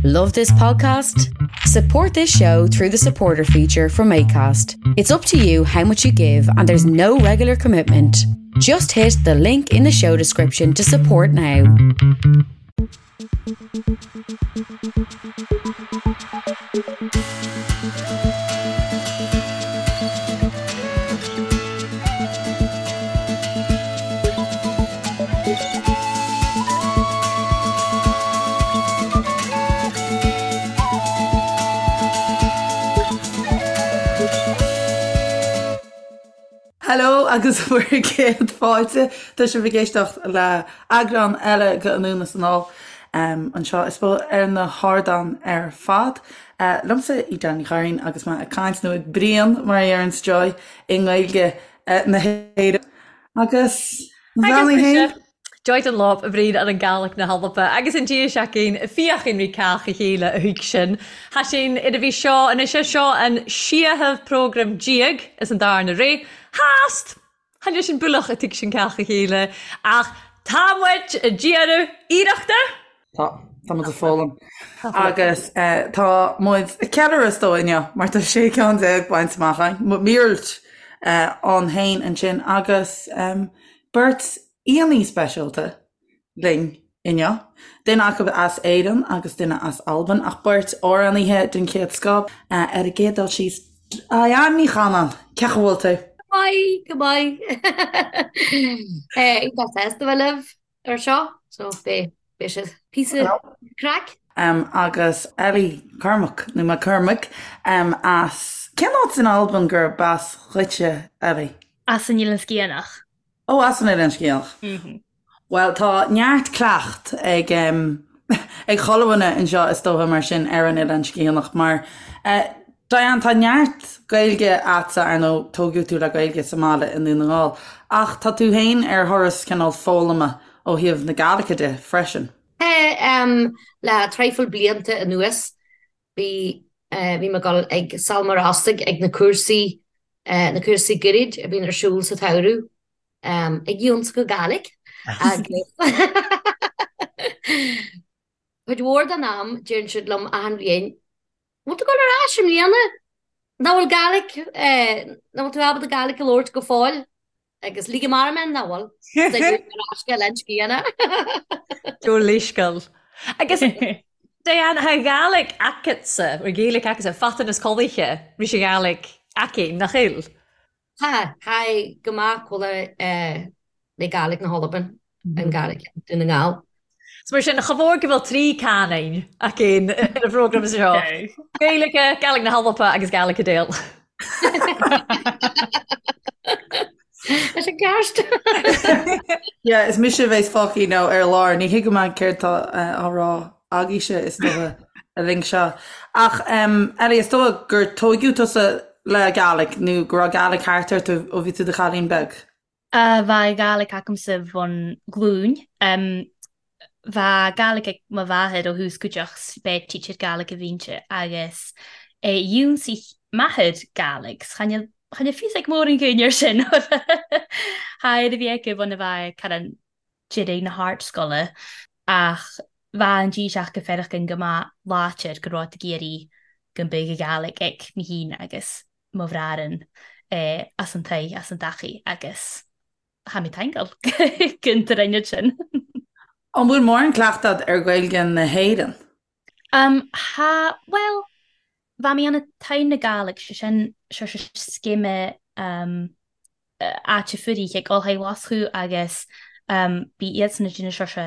Love this podcast? Support this show through the supporter feature from ACAST. It's up to you how much you give, and there's no regular commitment. Just hit the link in the show description to support now. Hello agus bhur gcéad fáilte. Tá sibh ag éisteacht le eagrán eile de Anonn is Anall anseo is ar na hardáin ar fad. Liomsa Edel Ní Churraoin agus mé ag caint nó ag bruíon mar a deireanns Joy i nGaeilge na hÉireann. Agus Agus mise, Joy Dunlop, a bhruíon ar an Gàidhlig na hAlba, agus an dia seacain, fiachain rí cách a chéile a thuig sin. Tha sinn ar a bhí seo, anois é seo an seadhamh prógram déag is an darna ré. Theast! Chan eil sinn buileach a tuig sinn cách a chéile, ach tá muid ag déanamh iarrachta! Tá, tá muid ag foghlaim. Agus tá muid ag ceiliúradh is dóigh inniu, mar tá 16 ceann bainte amach againn, míorúilt ann féin ansin, agus beirt aíonna speisialta linn inniu, duine acu as Éirinn agus duine as Albain, ach beirt amhránaithe den chéad scoth. Ar an gcéad dul síos, Diane Ní Chanainn, cén chaoi a bhfuil tú? Go maith, go maith. Iontach sásta a bheith libh ar seo, so beidh sé píosa craic. Agus Ellie Cormack, nó McCormack, as, cén áit in Albain gurb as dhuitse, Ellie? As an Eilean Sgitheanach. Ó, as an Eilean Sgitheanach. Bhuel, tá neart cleacht ag ag chuile dhuine anseo is dócha mar sin ar an Oileán Sgitheanach mar Diane, tá neart Gaeilge a'dsa, ar ndóigh, tógadh tú le Gaeilge sa mbaile i nDún na nGall, ach tá tú féin ar thuras cineál foghlama ó thaobh na Gàidhlige de freisin. Tá, le traidhfil blianta anuas bhí bhí mé ag dul ag Sabhal Mòr Ostaig ag na cúrsaí na cúrsaí gairid a bhíonn ar siúl sa tsamhradh. Ag ionsachadh Gàidhlig agus cuid mhór den am deireann siad liom achan bhliain, bhfuil tú ag dul ar ais i mbliana? Nach bhfuil Gàidhlig, nach bhfuil tú ábalta Gàidhlig a labhairt go fóill? Agus lig amach mé nach bhfuil. Ar ais go Oileán Sgitheanach. Do leithscéal. Agus Diane, tha Gàidhlig agatsa, bhur Gaeilge agatsa, fadtan as coillte, ris a Ghàidhlig aici, nach eil? Tha, tha go maith cùmhail le Gàidhlig na h-Alban, an Gàidhlig Dùn na nGall. 'S mar sin, cha mhór go bhfuil trí cannain againn ar an phrógram seo. Gaeilge, Gàidhlig na hAlba agus Gàidhlig Cadell. Leis an gceart. Yeah, is mise a bheas fágtha nó ar lár, ní thuigim céard tá á rá agaibhse is dócha an linn seo. Ach Ellie, is dócha gur tóigeadh tusa le Gàidhlig nó go raibh Gàidhlig thart ort ó bhí tú i do chailín beag? Bha Gàidhlig agamsa bhon ghlúin. Bha Gàidhlig ag mo mhàthair ó thús cuideachd 's b'e teacher Gàidhlig a bh' innte agus dh'ionnsaich m'athair Gàidhlig 's chan eil chan eil fios ag mòran dhaoine air sin tha air a bhí aige bhon a bheith cara deiridh na hardscoile ach bha an díseach go fearachan go maith láidir go raibh ag iarraidh go mbeadh Gàidhlig ag mé féin agus mo bhraran as an taigh as an dtachaí agus tha mi taingeal gon droinead sin. An bhfuil mórán cleachtadh a'd ar Ghaeilge na hÉireann? Tha, bhuel, bha mi ann a' Taigh na Gàidhlig, sé sin, seo sé scéime áite fuirich ag Ollscoil Mhoscó agus bhí iadsan ag déanamh seo sé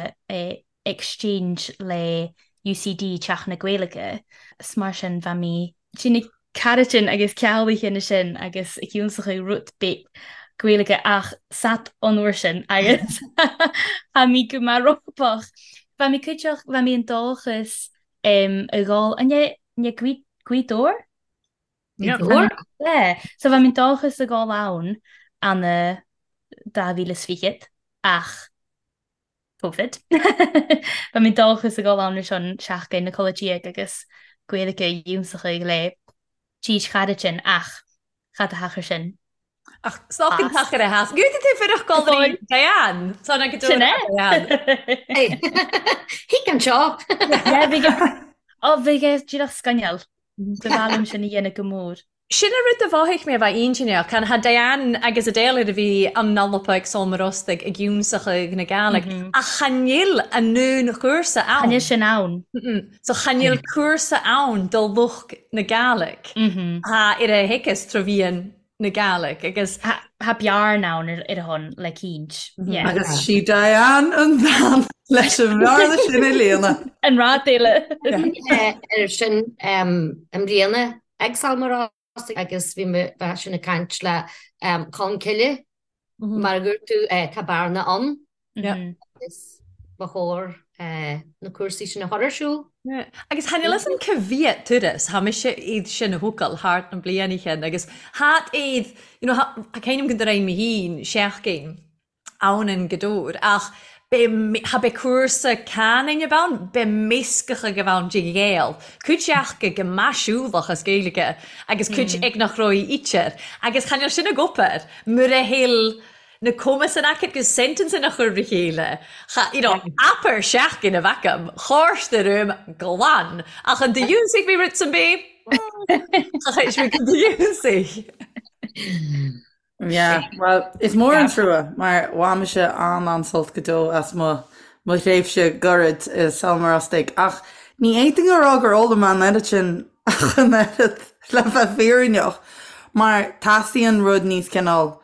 exchange le UCD, Teach na Gaeilge, 's mar sin bha mi déanamh caraitin agus ceallaithe na sin agus ag ionsachadh rud beag Gaeilge ach sat an uair sin agus tha mi go maith rópach. Bha mi cuideachd, bha mi an dòchas a dhul, an é Gaoth Dobhair? Gaoth Dobhair? Yeah, so bha mi an dòchas a dhul ann ann a 2020 ach Covid. Bha mi an dòchas a dhul ann ann seachdain na codladh agus Gaeilge a ionsachadh le tís charaitin ach cha do thachair sin. Ach stoc an tachair a theas. Gúta tú fuireach golraí Diane. Tá na go Sin é. Diane. Thig anseo. Yeah, bhí go. Ó, bhí é díreach scannáil. Ba mhaith liom sin a dhéanamh go mór. Sin an rud a mhothaigh mé a bheith intinneach. Can tha Diane agus Adele ar a bhí an Alba ag Sabhal Mòr Ostaig ag iúnsachadh na Gàidhlig, ach cha nil an aon chúrsa ann. Cha nil sin ann. So cha nil cúrsa ann do lucht na Gàidhlig. Tha ar a thiocfas trò mheadhan na Gàidhlig agus. Tha bearna ann ar a shon le cinnt. Agus sí Diane an bhean leis an bhearna sin a líonadh. An rud eile. Ar sin i mbliana ag Sabhal Mòr Ostaig agus bhí mé bheith sin ag caint le Colmcille mar a dúirt tú tá bearna ann agus ba chóir na cúrsaí sin a chur ar siúl. Agus tha níl fhios a'm ca mhiat turas, tha mise iad sin a thógáil thart na bliana chean agus thát iad, you know, tha cuimhním go raibh mé féin seachtain ann in Gaoth Dobhair ach be, tha be cúrsa cannainn ab ann, be measctha go bh ann de Ghael, cuid aca go maisiúlach as Gaeilge agus cuid ag nach raibh ítear agus chan eil sin ag obair mura heil na cumas an aca agus sentence a chur re chéile. Cha, you know, abair seachtain a bheith agam, chársta rúm glan, ach an do dhiúnsaigh mé rud san bith? Cha chuir mé go do dhiúnsaigh. Yeah, well, is mór an trua mar bhain mise an-an-sult go deo as mo mo thréimhse gairid i Sabhal Mòr Ostaig ach ní fhéadfainn a rá gur fhoghlaim mé an oiread sin ach an oiread le bheith fírinneach mar teastaíonn rud níos cineál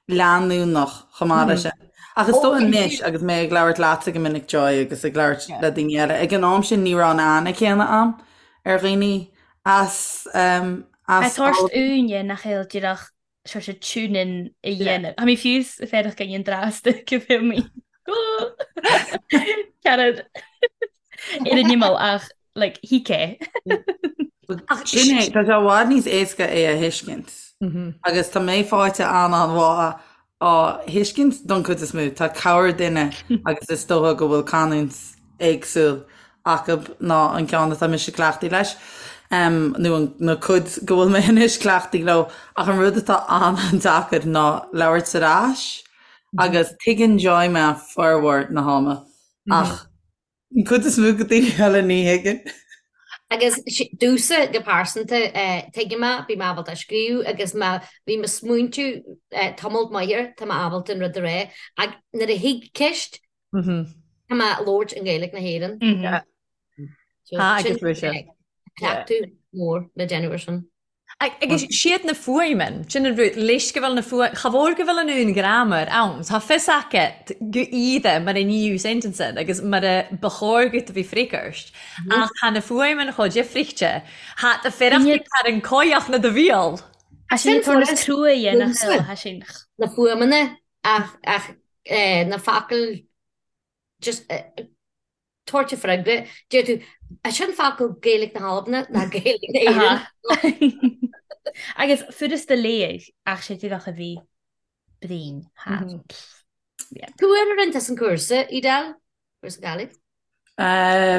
leanúnach chomh maith leis sin. Ach is dóigh anois agus mé ag labhairt leatsa go minic Joy agus ag labhairt le daoine eile, ag an am sin ní raibh an aithne céanna a'm ar dhaoine as as Tá úine nach eil díreach sort of tune in a dhéanamh. Tha mi fiù 's feadach againn an drasta go bhfuil mé. Ceanad ar an imeall ach like thig é. Ach sin é, tá sé i bhfad níos éasca é a thuiscint. Agus tá mé faighte an-an-mhaith á thuiscint don chuid is mó. Tá corrdhuine agus is dócha go bhfuil canúint éagsúil acu ná an ceann atá mise cleachtaithe leis, nó an na cuid go bhfuil mé anois cleachtaithe leo. Ach an rud atá an-an-deacair ná labhairt ar ais agus tuigeann Joy mé formhór na hama ach an cuid is mó de daoine eile ní thuigeann. Agus domhsa go pearsanta, tuigim mé, bím ábalta scríobh agus má bhím ag smaointiú tamall maith air, tá mé ábalta an rud a rá. Ach nuair a thig ceist, tá mé ag labhairt i nGaeilge na hÉireann. Tá agus bhí sé. Cleachtadh mór le déanamh ar sin. Agus siad na fuaimeann, sin an rud, leis go bhfuil na fuaim, cha mhór go bhfuil an uain ghramar ann, tá fios aca go iad mar a níodh sentence agus mar a ba chóir dhuit a bhí freagairt, ach tá na fuaimeann chomh difrichte, thá do fearacht ag an cóidheach na do bhial. Tá sin turas crua a dhéanamh, tá sin. Na fuaimeanna ach ach na focail just tabhairt a freagra, deir tú, "An sin focal Gaeilge na hAlban ná Gaeilge na hÉireann?" Agus furasta léamh ach sé díreach a bhí brín thar. Cá huair a rinne tusa an cúrsa, Edel? Cúrsa Gàidhlig?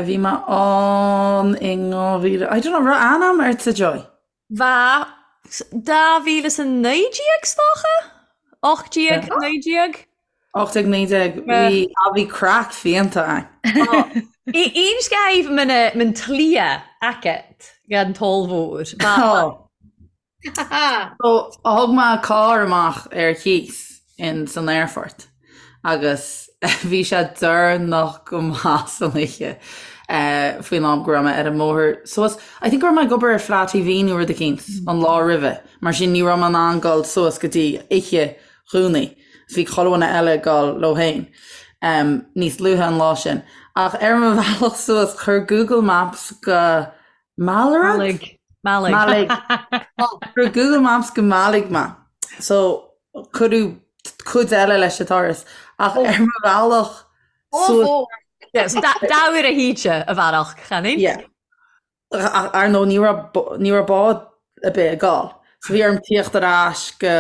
Bhí mé ann in 2000, I don't know, raibh aithne a'm ortsa Joy? Bha 2019 's dócha? 18, 19? 18, 19, bhí, ah bhí craic fiánta a'inn. Aon scaimh man tlia agat gan toll mhór. So thug mé carr amach ar cíos in san aerfort agus bhí sé deireanach go maith san oíche faoin am go raibh mé ar an mbóthar suas. I think go raibh mé ag obair ar Fleadh TV nó rud eicínt an lá roimhe, mar sin ní raibh mé in ann dul suas go dtí oíche Dhomhnaigh. Bhí chuile dhuine eile ag dul leo féin níos luaithe an lá sin. Ach ar mo bhealach suas chuir Google Maps go Mallaig? Mallaig. Mallaig. Chuir Google Maps go Mallaig mé. So cuireadh cuid eile leis an turas. Ach ar mo bhealach suas. Yes, dá uair a híte a bhealach, chan é? Yeah. Ach ar ndóigh ní raibh ní raibh bád ar bith ag dul. So bhí orm tíocht ar ais go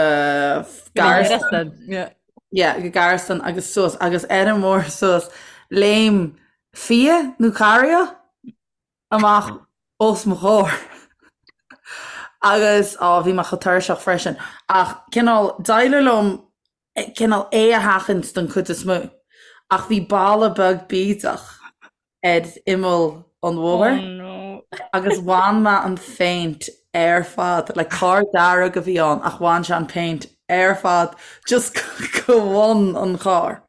Gearasdan. Yeah. Yeah, go Gearasdan agus suas agus ar an mbóthar suas léim fia nó carria amach os mo chomhair. Agus, á, bhí mé chomh tuirseach freisin. Ach cineál, d'éirigh liom cineál é a sheachaint don chuid is mó. Ach bhí balla beag bídeach ar imeall an bhóthair. Oh no. Agus bhain mé an phéint ar fad, like carr dearg a bhí ann ach bhain sé an péint ar fad just go bhun an chairr.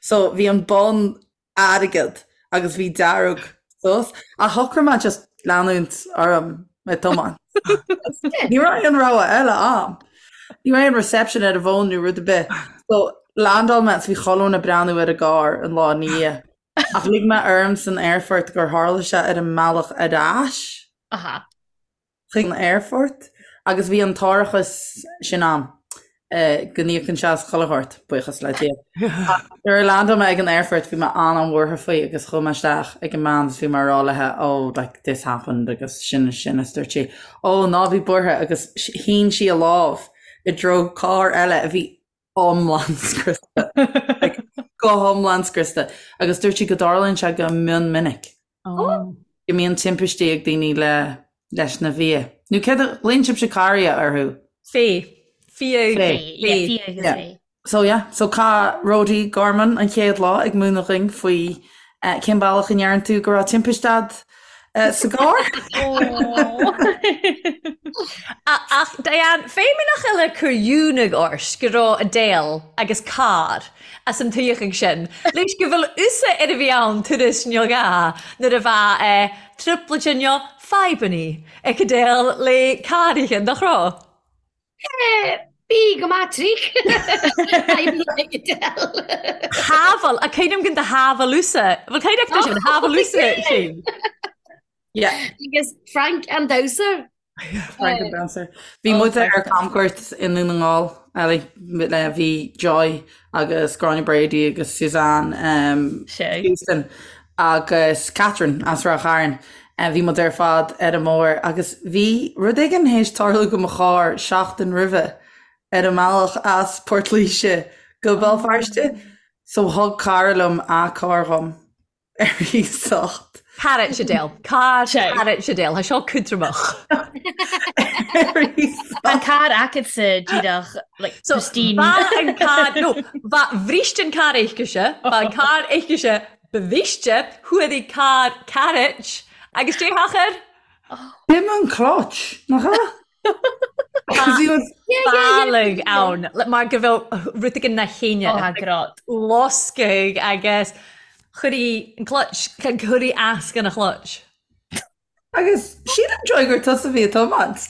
So bhí an bun airgead agus bhí dearg suas. Ach shocraigh mé just leanúint orm ag tiomáint. Ní raibh aon rogha eile a'm. Ní raibh aon reception ar an bhfón nó rud ar bith. So landáil mé is bhí chuile dhuine ag breathnú ar an gcarr an lá ina dhiaidh. Ach lig mé orm san aerfort gur tharla sé ar an mbealach ar ais. Aha. Chuig an aerfort agus bhí an t-árachas sin a'm go n-íocann sé as chuile shórt, buíochas le Dia. Ach nuair a landáil mé ag an aerfort bhí mé an-an-bhuartha faoi agus chuaigh mé isteach ag an mbean agus bhí mé ag rá léi oh like this happened agus sin is sin is dúirt sí oh ná bí buartha agus shín sí a lámh i dtreo carr eile a bhí iomlán scriosta. Like, go hiomlán scriosta. Agus dúirt sí go dtarlaíonn sé go mion minic. Oh. Go mbíonn timpistí ag daoine le leis na fia. Nó céard a ghlaonn sibhse carria orthu? Fé. Fia. Fé. Yeah, fia agus Yeah. fé. So yeah, so chaith Rody Gorman an chéad lá ag múineadh dhuinn faoi eh, cén bealach a ndeireann tú go raibh timpiste a'd sa gcarr. Ach Diane, feidhmeannach eile cur ionadh ort go raibh Adele agus carr as an tuigheadh sin, leis go bhfuil usa ar a bhí ann turas neo gá nuair a bheadh trioblóide neo fadhbannaí ag Adele le carraithe, nach raibh? Bí go maith trích. Fadhbannaí ag Adele. Shábháil, a cuimhním go do shábháil usa. Bhfuil cuimhne agat sin, shábháil usa sin. Yeah. Agus Frank an damhsa. Frank an damhsa. Bhí muid ar camchuairt i nDún na nGall, Ellie, le bhí Joy agus Gráinne Brady agus Suzanne um, Houston agus Catherine as Ráth Chairn. Bhí muid ar fad ar an mbóthar agus bhí rud éigin théis tarlú go mo charr seachtain roimhe ar an mbealach as Port Laoise go Béal Feirste so thug cara liom a carr dhom ar iasacht. Carr Adele. Carr Adele. Tá seo cútramach. Ar iasacht. An carr agatsa díreach like So, pristine. Ba an carr, no, ba bhrist an carr aicise, ba an carr aicise bhriste, chuaigh carr carrot agus dé hachair? B'in an clutch, nach ea? Bealaigh ann, mar go bhfuil rud éigin na chéine. Ó, tá grod. Loscaigh agus chuir an clutch, chuir as gan a clutch. Agus sílim Joy gur tusa a bhí ag tiomáint.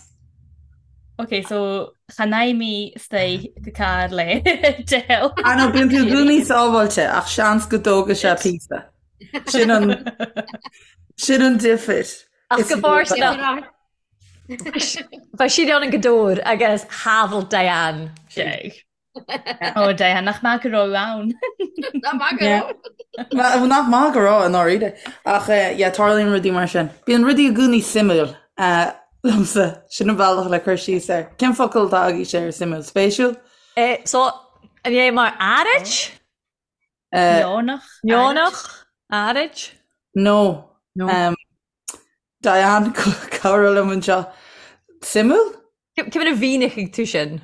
Ok, so chan fhaigh mé istigh go carr le Adele. Ah no, bíonn tú i gcónaí sábháilte ach seans go dtógfaidh sé píosa. Sin an sin an difir. Ach go bhfóirsteanach. Bheadh siad ann an go dór agus shábháil Diane. Sé. Ó Diane, nach maith go raibh ann. Nach maith go raibh. Nach maith go raibh i ndáiríre. Ach yeah, tarlaíonn rudaí mar sin. Bíonn rudaí i gcónaí suimiúil liomsa. Sin an bealach le cur síos air. Cén focal atá agaibhse ar suimiúil? Spéisiúil? So, an é mar áirid? Neonach. Neonach? Áirid? No. No. Diane, cabhraigh liom anseo. Suimiúil? Cé mhéad a mhínigh tú sin?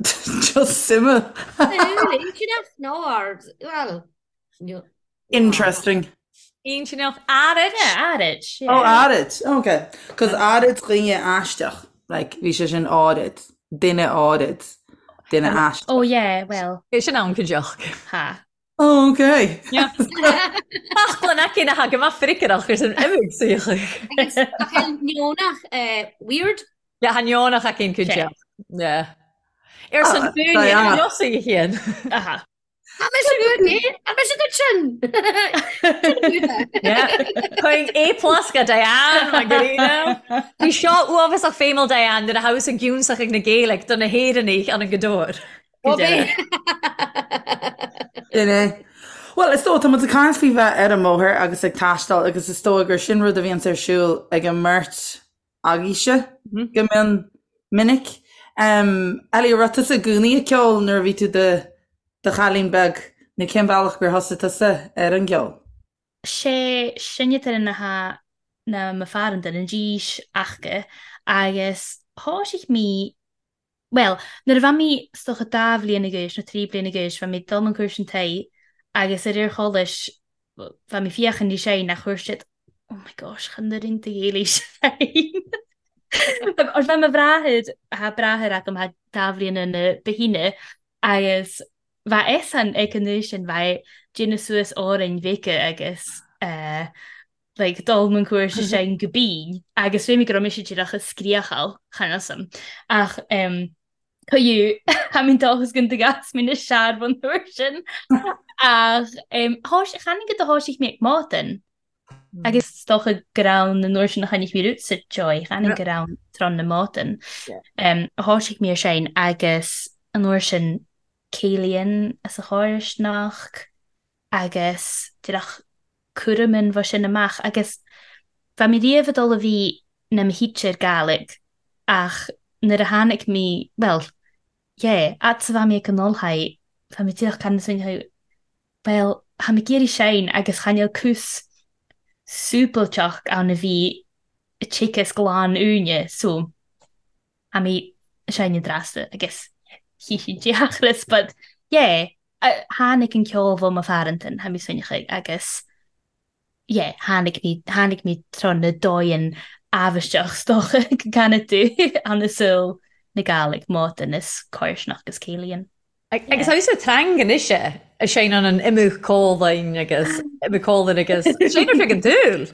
Just suimiúil. Suimiúil, intinneach nó ard, well, no. Interesting. Intinneach, áirid. Yeah, áirid. Yeah. Oh, áirid. Okay. Cos áirid dhaoine aisteach. Like, bhí sé sin áirid. Duine áirid. Duine aisteach. Oh yeah, well. É sin ann cuideach. Ha. Oh, okay. Yeah. Ach le na cinn a thagann amach fricaireach ar san imig saoch. Agus ach neonach, eh, weird. Yeah, tha neonach a cinn cuideach. Yeah. Ar san Ah, dúine Diana. Josaí a chéan. Aha. Tá mise good, eh? Tá mise good sin. Yeah. Chuig A plus go Diane Margarina. Bhí seo uafásach feidhmiúil Diane nuair a thabhas an giúnsach ag na Gaeilge do na hÉireannaigh an an Gadóir. Sin é. Bhuel, is dóigh, tá muid ag caint faoi bheith ar an mbóthar agus ag taisteal agus is dóigh gur sin rud a bhíonns ar siúl ag an mbeirt agaibhse go mion minic. Ellie, an raibh tusa i gcónaí ag ceol nuair a bhí tú do do chailín beag nó cén bealach gur thosaigh tusa ar an gceol? Sé sinne na ha na mo fear an duine dís aca agus thoisigh mé Bhuel, nuair a bha mi 's dócha dà bhliadhna dh'aois nó trí bliana dh'aois bha mi ag dul an cúirt an taigh agus ar ar cholais bha mi féachaint leis é nach chuir siad. Oh my gosh, chan oireann do Ghaeilge féin. Or bha mo bhràthair, tha bràthair agam tha dà bhliadh ann ba shine, agus bha eisean ag an uair sin, bha é déanamh suas òrainn bheaga agus eh, like, dul mun cúrsa sin go binn, agus bhí mé go raibh mise díreach ag scríochail, chan fhios a'm. Ach em, Cuireadh tha mi dòchas gun gas mi na searbh an uair sin ach chan go do thoisigh mé ag maidin agus is dócha gur ann an uair sin a chonaic mé Roots Joy chan gur ann tráth na maidin a thoisigh mé ar sin agus an uair sin céilíonn as a chóirisneach agus díreach cúraimín bha sin amach agus bha mé riamh ag dul a bhí na mo theacher Gàidhlig ach nuair a tháinig mé, bhuel, yeah, fhad 's a bha mé ag an ollscoil bha mé díreach gan san bhuel, tha mi ag iarraidh seinn agus chan eil cús súbailteach ann a bhí teagasc glan uainne so tha mi ag seinm drasta agus chífidh deachras but yeah tháinig an ceol bho mo pharantain tha mi smaoineachadh agus yeah tháinig mé tháinig mé tráth na dóigheann amhaisteach 's dócha go gcanfaidh tú an saol na Gàidhlig mòdan is còirsneach agus céilíonn. Agus tá sa trang anois é, a seinneann an imeadh cólainn agus imeadh cólainn agus seinneann sé an dúil.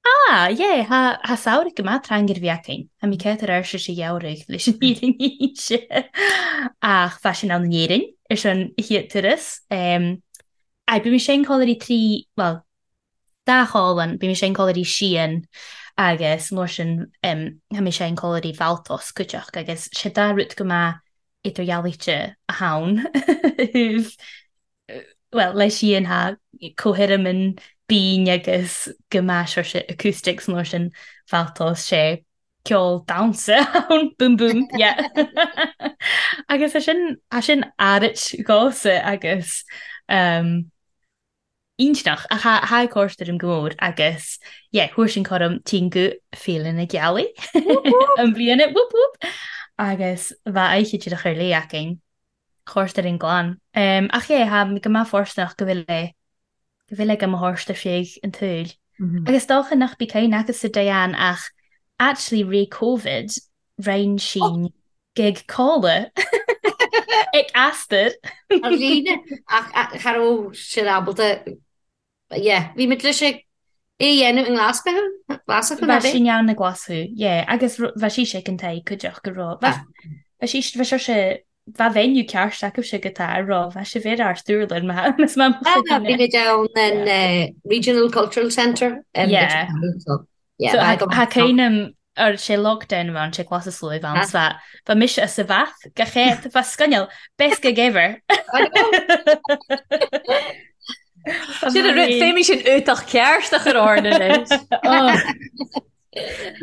Ah, yeah, tha tha samhradh go maith trang ar bhí againn. Tha mi céad ar ais sa gheimhreadh leis an fhírinne a inse. Ach bha sinn ann in Éirinn ar son a chéad turas. Aye, bhí mé sin codladh trí, bhuel, dá cholainn, bhí mé sin codladh síon agus mar sin tha mé sin codladh Bhaltos cuideachta agus sé dá rud go maith idirdhealaíte a thann. Bhuel, leis síon tha comhthirim binn agus go maith sé acoustics nó sin Bhaltos sé ceol damhsa ann, boom boom, yeah. Agus é sin, é sin árit dhomhsa agus um, iontach ach tha tha còrst air go mór agus yeah, thuair sin chorm tinn go Féile na Gealaí an bliana, whoop whoop, agus bha oidhche díreach ar léith againn. Chorst ar an gclann. Ach yeah, tha go maith fóirsteanach go bhfuil é, go bhfuil ag mo thorst ar feadh an tsaoil. Agus dócha nach bí cuimhne agatsa Diane ach actually ré Covid rinn sinn gig codladh ag Astor. Ar líne ach cha raibh siad ábalta Yeah, bhí muid leis é a dhéanamh i nGlaschú, Glaschú Bha sinn ann i nGlaschú, yeah, agus bha sí sé an t-aghaidh cuideachta go raibh, bha sí, bha sé sé, bha venue ceart acu go tá a raibh, bha sé bhéar ár stiúrlann má is má mo chuid Bhí muid ann in Regional Cultural Centre. Yeah. So, yeah. So, tha cuimhneam ar sé lockdown bha sé glas is luaith bha bha bha mise as sa bhath go chéad bha scoinneal best gig ever. Sin an rud, féimidh sin útach ceart a chur orainn anois.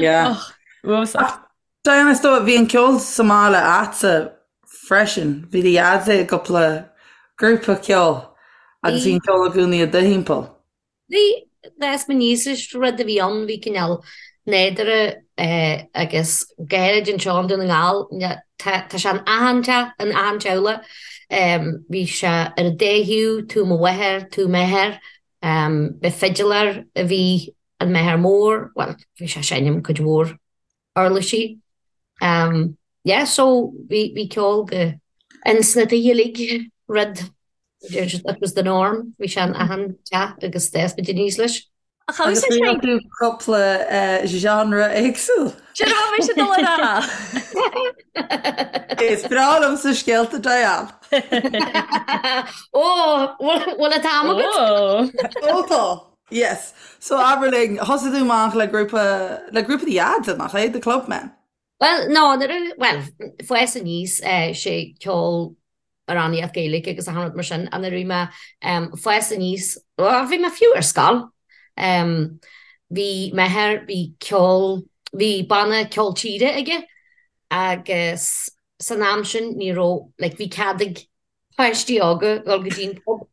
Yeah. Uafásach. Diane, is dóigh, bhí an ceol sa mbaile a'dsa freisin. Bhí do dhaid i gcúpla grúpa ceoil agus bhí an ceol i gcónaí i do thimpeall. Bhí, d'fhás mé aníos leis, rud a bhí ann, bhí cineál nádúrtha agus gairid anseo i nDún na nGall, tá sé in achan teach, in achan teaghlach. Bhí sé ar an dá thaobh, taobh mo mháthar, taobh m'athar. Ba fidiléir a bhí in m'athair mór, bhuel, bhí sé ag seinm cuid mhór uirlisí. Yeah, so bhí bhí ceol go ins na tithe uilig, rud, it was the norm, bhí sé in achan teach agus d'fhás muid aníos leis. Ach agus Agus rinne tú cúpla genre éagsúil. Sin a bhí mise ag dul a rá. Is breá liomsa scéalta Diane. Ó, bhfuil an t-am agat? Ó tá. Yes. So abair linn, thosaigh tú amach le grúpa, le grúpa do dhaid, nach é? The Clubmen? Bhuel, no, nuair a, bhuel, fás aníos, sé ceol amhránaíocht Gaeilge agus achan rud mar sin, ach nuair a bhí mé fás aníos, bhuel, bhí mé fiú ar scoil, bhí m'athair, bhí ceol, bhí banna ceol tíre aige agus san am sin ní raibh, like, bhí cead ag páistí óga dul go dtí an pub.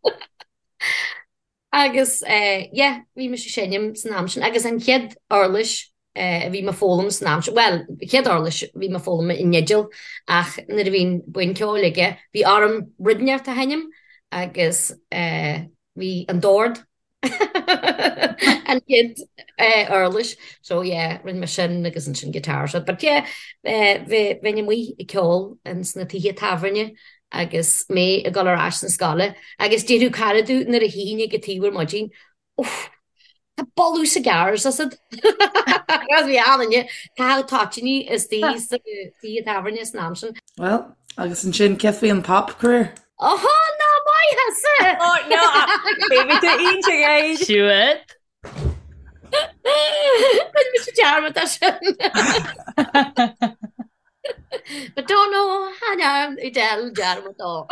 Agus yeah, bhí mise ag seinm san am sin agus an chéad uirlis a bhí mé ag foghlaim san am sin, bhuel, chéad uirlis a bhí mé ag foghlaim an fhidil ach nuair a bhí an buíon ceoil aige, bhí orm rud inteacht a sheinm agus bhí an dord. An chéad uirlis. So yeah, rinne mé sin agus ansin guitar so. But yeah, bheinn amuigh ag ceol ins na tithe tábhairne agus mé ag dul ar ais na scoile agus déarfadh cara domh nuair a tchífinn ag an taobh ar maidin, Uff, tá boladh cigars asat. Agus bhí an-duine, caitheadh toitíní istigh sa tigh tábhairne san am sin. Well, agus ansin cé faoi an pop career? Ohó, ná maith thusa! Oh, no, baby, tú iontach é. Siúd. Rinne mise dearmad as sin. But don't know how Edel dearmad ó.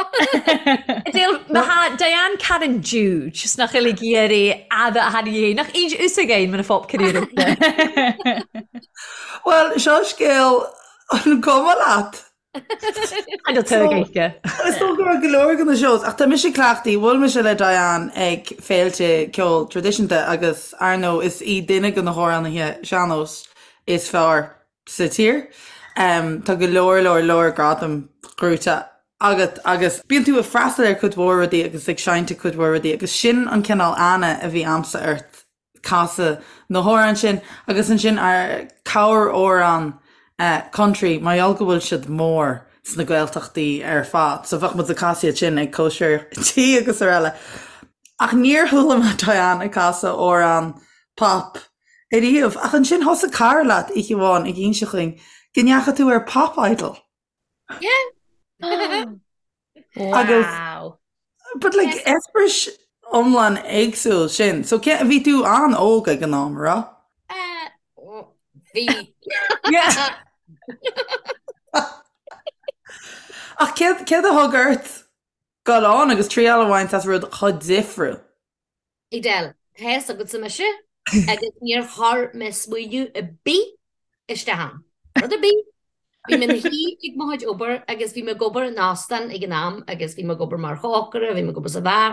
Edel, ma tha Diane Karen Jude, 's nach uilig iarraidh fhada a tháinig é, nach aon ús againn mar a phop career. Well, seo scéal an cuma leat. An tú ag éice. Is dócha go raibh go leor de na shows, ach tá mise cleachtaithe, bhuail mise le Diane ag féilte ceoil traidisiúnta agus ar ndóigh is í duine de na hamhránaithe sean-nóis is fearr sa tír. Tá go leor leor leor gradam gnóite agat agus bíonn tú ag freastal ar cuid mhór rudaí agus ag seinnt ag cuid mhór rudaí agus sin an cineál aithne a bhí a'msa ort casadh na hamhráin sin agus ansin ar corr-amhrán country mar gheall go bhfuil siad mór sna Gaeltachtaí ar fad so bheadh muid ag casadh iad sin ag cóisir tí agus araile. Ach níor chuala mé Diane ag casadh amhrán pop ariamh ach ansin thosaigh cara leat oíche amháin ag inse chugainn go ndeachaigh tú ar Pop Idol. Yeah. Agus Wow. But like eispéireas iomlán éagsúil sin. So cé bhí tú an-óg ag an am, raibh? Uh, bhí. Yeah. Ach céard céard a thug ort dul ann agus triail a bhaint as rud chomh difriúil? Edel, tá fhios agatsa mise agus níor chuir mé smaoineamh ar bith isteach ann. Rud ar bith. Bhí mé ina shuí ag mo chuid obair agus bhí mé ag obair in óstán ag an am agus bhí mé ag obair mar chócaire, bhí mé ag obair sa bheár.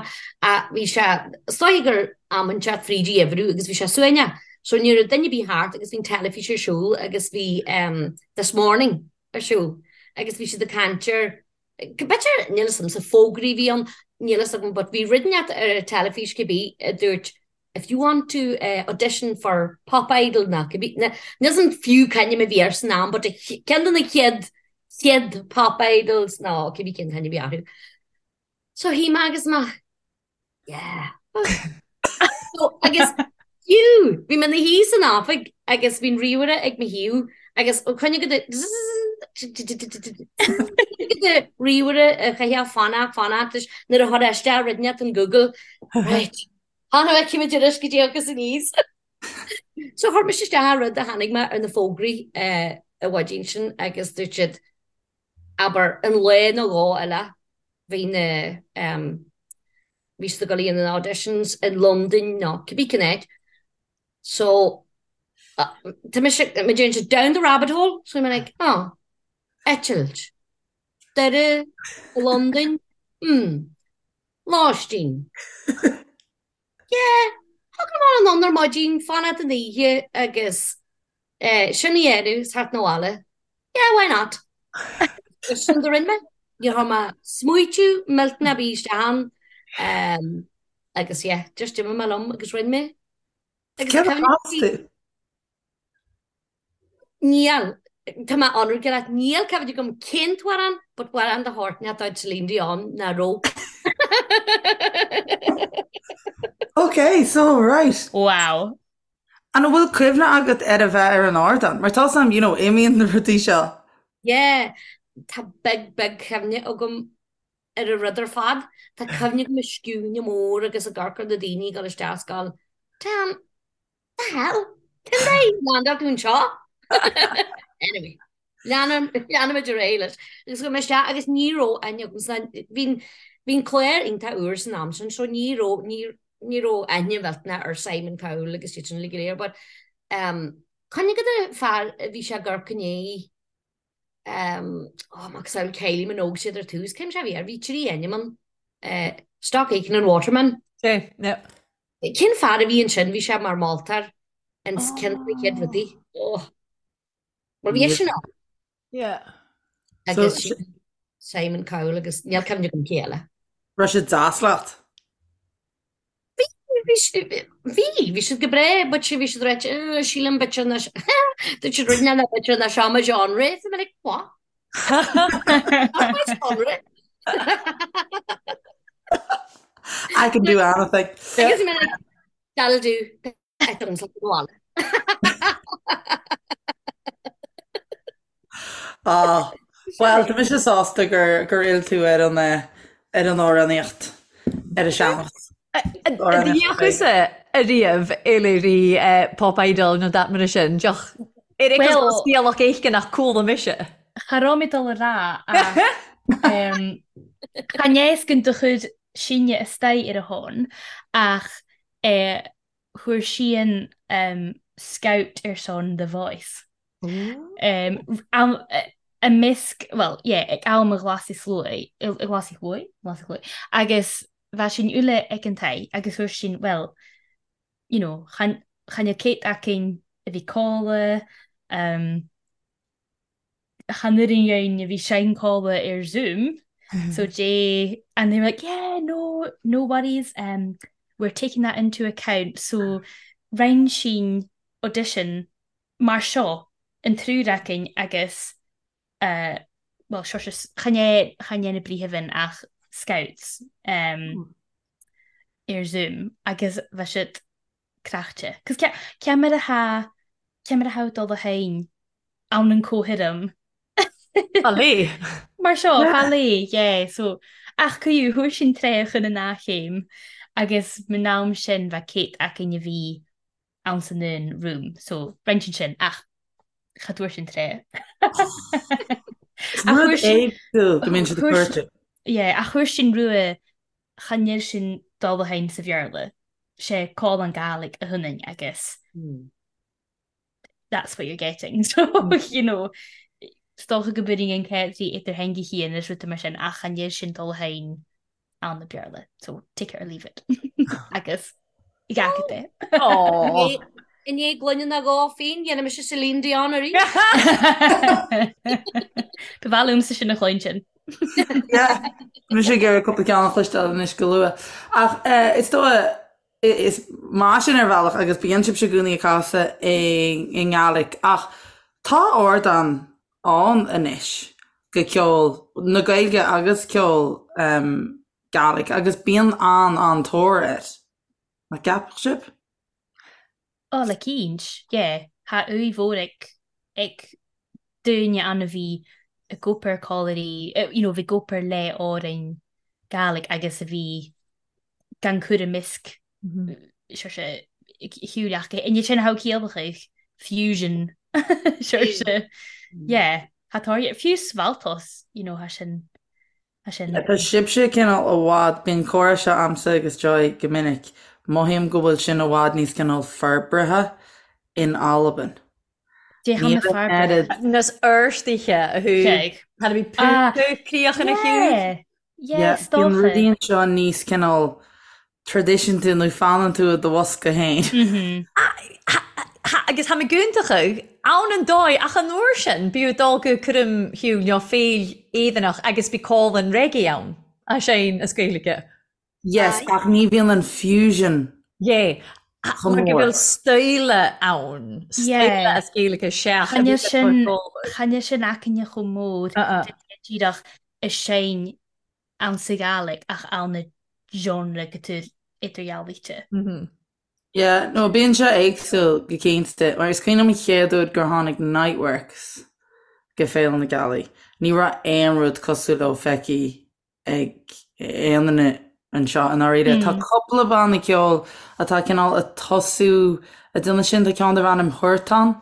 Bhí sé, is dóigh gur am inteacht fríd an gheimhreadh agus bhí sé suaimhneach. So ní raibh duine ar bith thart agus bhí an teilifís ar siúl agus bhí This Morning ar siúl agus bhí siad ag caint ar B'fhéidir, níl fhios a'msa, fógraí a bhí ann, níl fhios agam, but bhí rud inteacht ar an teilifís cibé a dúirt if you want to audition for Pop Idol nó cibé, níl fhios a'm fiú cén ainm a bhí air san am but ceann de na chéad, chéad Pop Idols nó cibé cén t-ainm a bhí orthu. So shuigh mé agus mé, Yeah. So, agus fiú, bhí mé ina shuí san oifig agus bhí an ríomhaire ag mo thaobh agus ó coinne go de de ríomhaire a chaithfeá fanacht fanacht leis nuair a chuir isteach rud inteacht in Google. Right. Tháinig mé cimid arís go dtí agus aníos. So chuir mise isteach an rud a tháinig mé ar na fógraí an mhaidin sin agus dúirt siad abair, an lá nó dhó eile, bhí na, bhí siad ag dul a dhéanamh na auditions i Londain nó cibé cén áit. So, tá mise, mé déanann siad down the rabbit hole, so I'm like, oh, eitilt, Doire, Londain, hmm, lóistín. Yeah, thug liom anonn ar maidin, fanacht an oíche agus sin a dhéanamh, is theacht 'na bhaile. Yeah, why not? Agus sin do rinne mé. Níor chuir mé smaoitiú millteanach ar bith isteach ann. Agus yeah, just d'imigh mé liom agus rinne mé. Agus Céard a chas tú? Níl. Tá mé ionraic leat, níl cuimhne agam cén t-amhrán, but amhrán de shórt inteacht de chuid Celine Dion nach raibh. Ok, so right. Wow. An bhfuil cuimhne agat ar a bheith ar an ardán? Mar tá 'fhios a'm, you know, imíonn na rudaí seo. Yeah, tá big, big cuimhne agam ar an rud ar fad. Tá cuimhne agam an scuaine mór agus ag amharc ar na daoine ag dul isteach is ag gabháil, Damn, the hell? Cén dóigh ar landáil tú anseo? Anyway, leanfaimid ar aghaidh leis. Agus chuaigh mé isteach agus ní raibh aithne agam san bhí bhí an clár iontach úr san am sin so ní raibh ní ní raibh aithne mhillteanach ar Simon Cowell agus iad sin uilig go léir but um, cuimhne agat an fear a bhí sé ag amharc i ndiaidh um, oh, macasamhail Kylie Minogue siad ar tús, cén sé a bhí air, bhí trí ainm ann, uh, Stock Aitken and Waterman. Sí, yeah. Cén fear a bhí ansin, bhí sé mar mholtóir ins ceann de na chéad rudaí. Oh. Bhuel bhí eisean ann. Yeah. Agus so, Simon Cowell agus níl cuimhne agam cé eile. Raibh sé deas leat? Bhí. Bhí bhí bhí siad go breá but bhí siad ráite "Eh, sílim b'fhéidir nach dúirt siad rinne na b'fhéidir nach seo mo genre. So I'm like, what? Not my genre. I can do anything. Agus I'm like, that'll do. I don't like the one. Ah, Well, tá mise sásta gur gur fhill tú ar an eh, ar an amhránaíocht ar an sean-nós. D'fhéachas-sa ariamh eile Pop Idol nó dat mar sin, deoch ar é Well- scéalach éisce nach cuala mise. Cha raibh mé dul a rá ach chan éascainn do chuid sinne istoigh ar a shon ach eh, chuir sí an scout ar son The Voice. I measc, bhuel, yeah, ag am a Ghlasaigh Shluaigh, Ghlasaigh Shluaigh? Ghlasaigh Shluaigh. Agus bheadh sin uile ag an taigh agus chuir sin, bhuel, you know, chan, chan fheadh céit againn a bhí codladh, chan oireann againn a bhí seinnchomhla ar Zoom so Jay and they were like yeah no no worries um, we're taking that into account so rinn sinn audition mar seo an triúr againn agus uh, well seo seo chan é chan é na bríthimh ach scouts um, ar Zoom agus bheadh siad craichte. Cos ce mar atá ce mar atá dul a féin ann an comhthirim. Fá Mar seo fá lé, yeah, so ach cuiú thuair sin tré chun an chéim agus man am sin bheith céit againn a bhí ann san un room, so roinnt sin ach cha dtuair sin tré. Rud éagsúil go mbíonn siad ag cuartú. Yeah, ach chuir sin rua chan fheil sin dul a féin sa Bhéarla. sé call an Gàidhlig a thunainn agus that's what you're getting so you know is dócha go b'fhéidir an céad idir theanga chian is rudaí mar sin ach an iad sin dul féin ann na Béarla so take it or leave it agus gach é. I ndiaidh gloine na dhá féin dhéanfaidh mise Celine Dion arís. Ba mhaith liomsa sin a chluinstin. Yeah, mise ag iarraidh cúpla ceann a chloisteáil anois go luath. Ach eh, is dóigh is maith sin ar bhealach agus bíonn sibhse i gcónaí ag casadh i i nGàidhlig ach tá ardán ann anois go ceol na Gaeilge agus ceol um, Gàidhlig agus bíonn an-an-tóir air. Nach gceapadh sibh? Ó, le cinnt, yeah. Tha uaidh mhór ag, ag daoine ann a bhí ag obair callairí, you know, a bhí ag obair le Árainn Gàidhlig agus a bhí gan cur i measc, sure sé, shiúil ach inniu sin how ciallach fusion, sure sé, yeah, tha tóir, fiú Svaltos, you know, tha sin, Sin. Tá sibhse cineál i bhfad, bíonn comhrá seo a'msa agus Joy go minic, mothaím go bhfuil sin i bhfad níos cineál forbartha in Albain. Dé Níl na an oiread. forbartha. Nas fhorstaithe a thu Cheig. Tá bhí púca críoch ina chiúin. Yeah, yeah, Yeah, is bíonn dócha. rudaí anseo níos cineál traidisiúnta nó fanann tú i do bhosca féin. Agus tha mi guntacha ann an dóigh ach an uair sin b'fhiú dul go cúram shiúil nó féil Éireannach agus bí cólann reggae ann a sein as Gaeilge. Yes, ach ní bhíonn an fusion Yeah. chomh Mar go mór. bhfuil stóile ann, stóile Yeah. as Gaeilge seach a Chan bhí é le sin, cur chan é sin aicinne chomh mór Uh-uh. díreach is sein ann sa Ghàidhlig ach ann na genre go tú idirdhealaíte. Yeah, no, bíonn sé éagsúil go cinnte, mar is cuimhin liom an chéad uair gur tháinig Niteworks go Féile na Gealaí. Ní raibh aon rud cosúil leo feicthe ag aon duine anseo i ndáiríre. Tá cúpla banna ceoil atá cineál ag tosú ag déanamh sin, tá ceann darb ainm Huartan.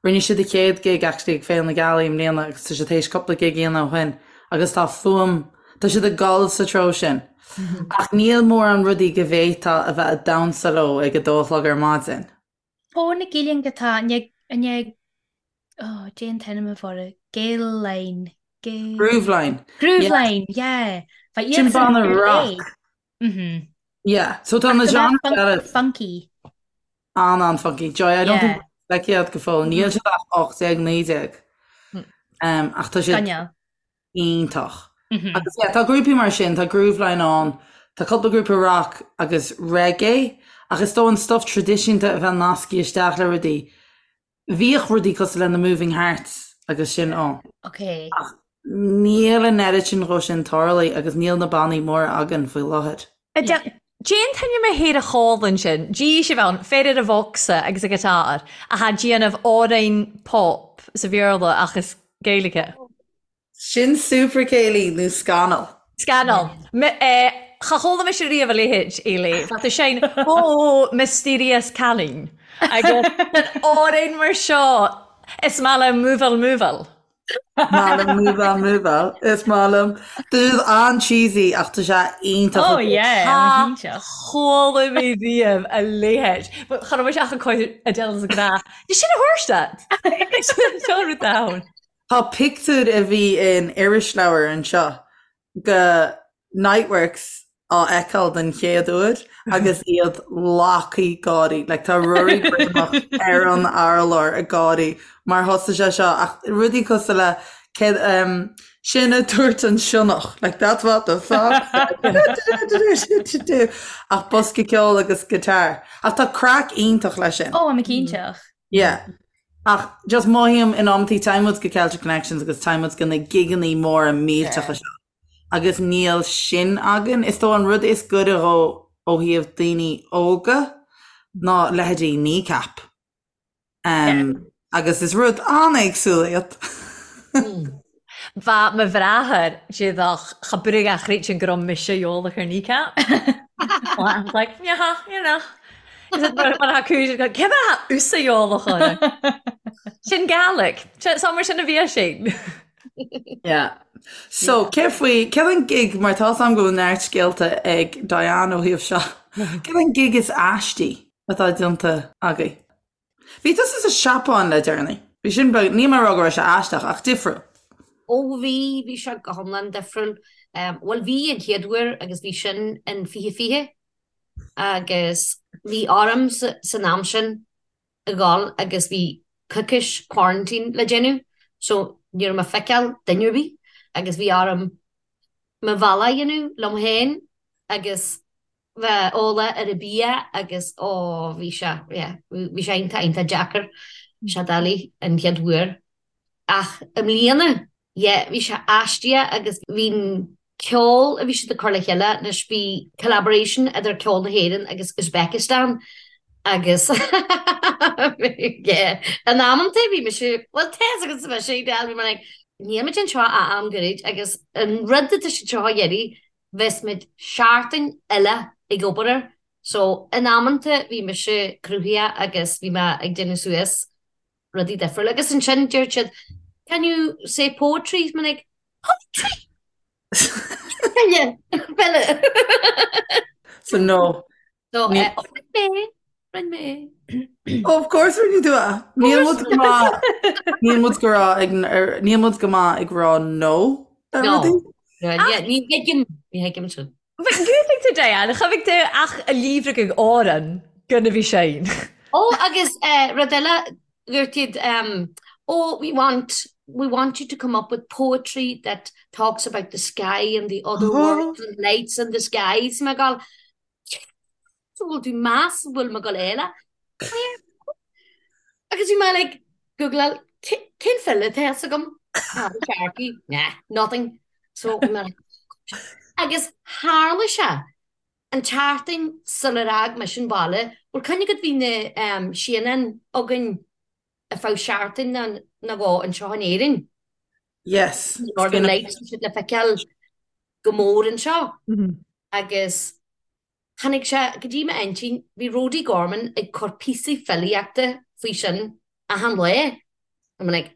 Rinne siad a chéad gig actually ag Féile na Gealaí i mbliana agus tá siad théis cúpla gig a dhéanamh ó shin agus tá fuaim, tá siad ag dul sa treo sin. Ach níl mórán rudaí go bhféadfá a bheith ag damhsa leo ag a dó a chlog ar maidin. Ó na Gillian go tá, ne, oh, Jane Tenim a bhora, Gael Line, Gael... Grooveline. Grooveline, yeah. Bha Sin iadsan banna ar rock. léigh. Mhm. Yeah, so tá Ach na go mbeadh genres funk, eile funky. an-an-funky. Joy, I don't think Yeah. feicthe iad go fóill. Níl siad ach 18, 19. Um, ach tá siad Scannail. iontach. Mhm. Agus yeah, tá grúpaí mar sin, tá Grooveline ann, tá cúpla grúpa rock agus reggae. Ach is dóigh an stuff traidisiúnta a bheith nasctha isteach le rudaí, bhíodh rudaí cosúil le na Moving Hearts agus sin ann. Ok. Ach níl an oiread sin dhó sin tarlaithe agus níl na bannaí móra againn faoi láthair. Déan tuine mé théar a chólann sin, dí sibh ann, féar ar a bhocsa agus a guitar, a tha déanamh amhrain pop sa Bhéarla ach is Gaeilge. Sin Super Céilí nó Scannal. Scannal. Cha chuala mise riamh a leithéid, Eilí. Bheadh tú sin, oh, mysterious cailín. Agus an amhrán mar seo, is maith liom múbháil múbháil. Maith liom múbháil múbháil. Is maith liom. Tá siad an-cheesy ach tá sé iontach. Oh yeah, Cha chuala mé riamh a leithéid. Cha raibh mise ach ag cur Adele sa ghnáth. Did sin a thabhairt duit? Seo rud ann. Tá pictiúr a bhí in irisleabhar anseo de Niteworks á fheiceáil den chéad uair agus iad lagtha gáirí. Like tá Ruairí Greumach ar an urlár ag gáirí mar thosaigh sé seo ach rudaí cosúil le céad um, sin a dúirt an sionnach like that's what the fox said ach bosca ceoil agus guitar. Ach tá craic iontach leis sin. Ó, I'm cinnteach. Yeah. Ach just mothaím in amantaí téann muid go Celtic Connections agus téann muid go na gigeannaí móra millteacha seo agus níl sin againn. Is dóigh an rud is gaire dhó ó thaobh daoine óga ná leithéidí Kneecap. Um, agus is rud an-éagsúil iad. Bha mo bhràthair déadach cha brugh a chreidfinn gur raibh mise eolach ar Kneecap. I was like, yeah, you know. Mar a cúis cé bheith thusa eolach orthu? Sin Gaelic. So mar sin a bhí sé. Yeah. So, cé faoi, céard an gig, mar tá 's a'm go bhfuil neart scéalta ag Diane ó thaobh seo, céard an gig is aistí atá déanta agaibh? Bhí tusa sa Seapáin le deireanaí. Bhí sin beag, níl mé ag rá go raibh sé aisteach, ach difriúil. Ó bhí, bhí sé go hiomlán difriúil. Bhuel bhí an chéad uair agus bhí sin in 2020 agus bhí orm san am sin a dhul agus bhí coicís quarantine le déanamh so ní raibh mé ag feiceáil duine ar bith agus bhí orm mo bhealach a dhéanamh liom féin agus bheith eolach ar an bia agus ó bhí sé yeah bhí sé iontach iontach deacair sé doiligh an chéad uair ach i mbliana yeah bhí sé aisteach agus bhí an ceol a bhí siad ag cur le chéile anois bhí collaboration idir ceol na hÉireann agus Uzbekistan agus yeah in amanta bhí mise bhuel tá fhios agat mise bhí mé like níl muid anseo ach am gairid agus an rud atá siad seo a iarraidh bheas muid seachtain eile ag obair air so in amanta bhí mise cruthaitheach agus bhí mé ag déanamh suas rudaí difriúla agus ansin deir siad can you say poetry? Bhí mé like poetry? File! File! So no. So eh, oh, rinne mé, rinne mé. Oh, of course rinne tú é. Níl muid go maith níl muid go rá ag ar- níl muid go maith ag rá no ar No. rudaí. No, yeah, ní thuigim, ní thuigim sin. Gútaigh tú Diane, cha bhfuil tú ach a líomhraigh ag Árann gona bhí sin. Ó, agus eh, rud eile, dúirt siad, um, oh, we want, we want you to come up with poetry that talks about the sky and the other worlds and lights in the sky. So mé ag gabháil, So bhfuil tú meas bhfuil mé ag gabháil eile? Agus bhí mé like, Googleáil, cén file atá fhios agam? Paddy Sharkey, nah, nothing. So bhí mé like, agus tharla sé an tseachtain sular fhág mise an baile, bhfuil cuimhne agat bhí na um, síonáin againn ar feadh seachtain nó dhó anseo in Éirinn. Yes. Northern Lights siad le feiceáil go mór anseo. Agus Tháinig sé go dtí m'intinn, bhí Rody Gorman ag cur píosaí filíochta faoi sin achan lá. I'm like,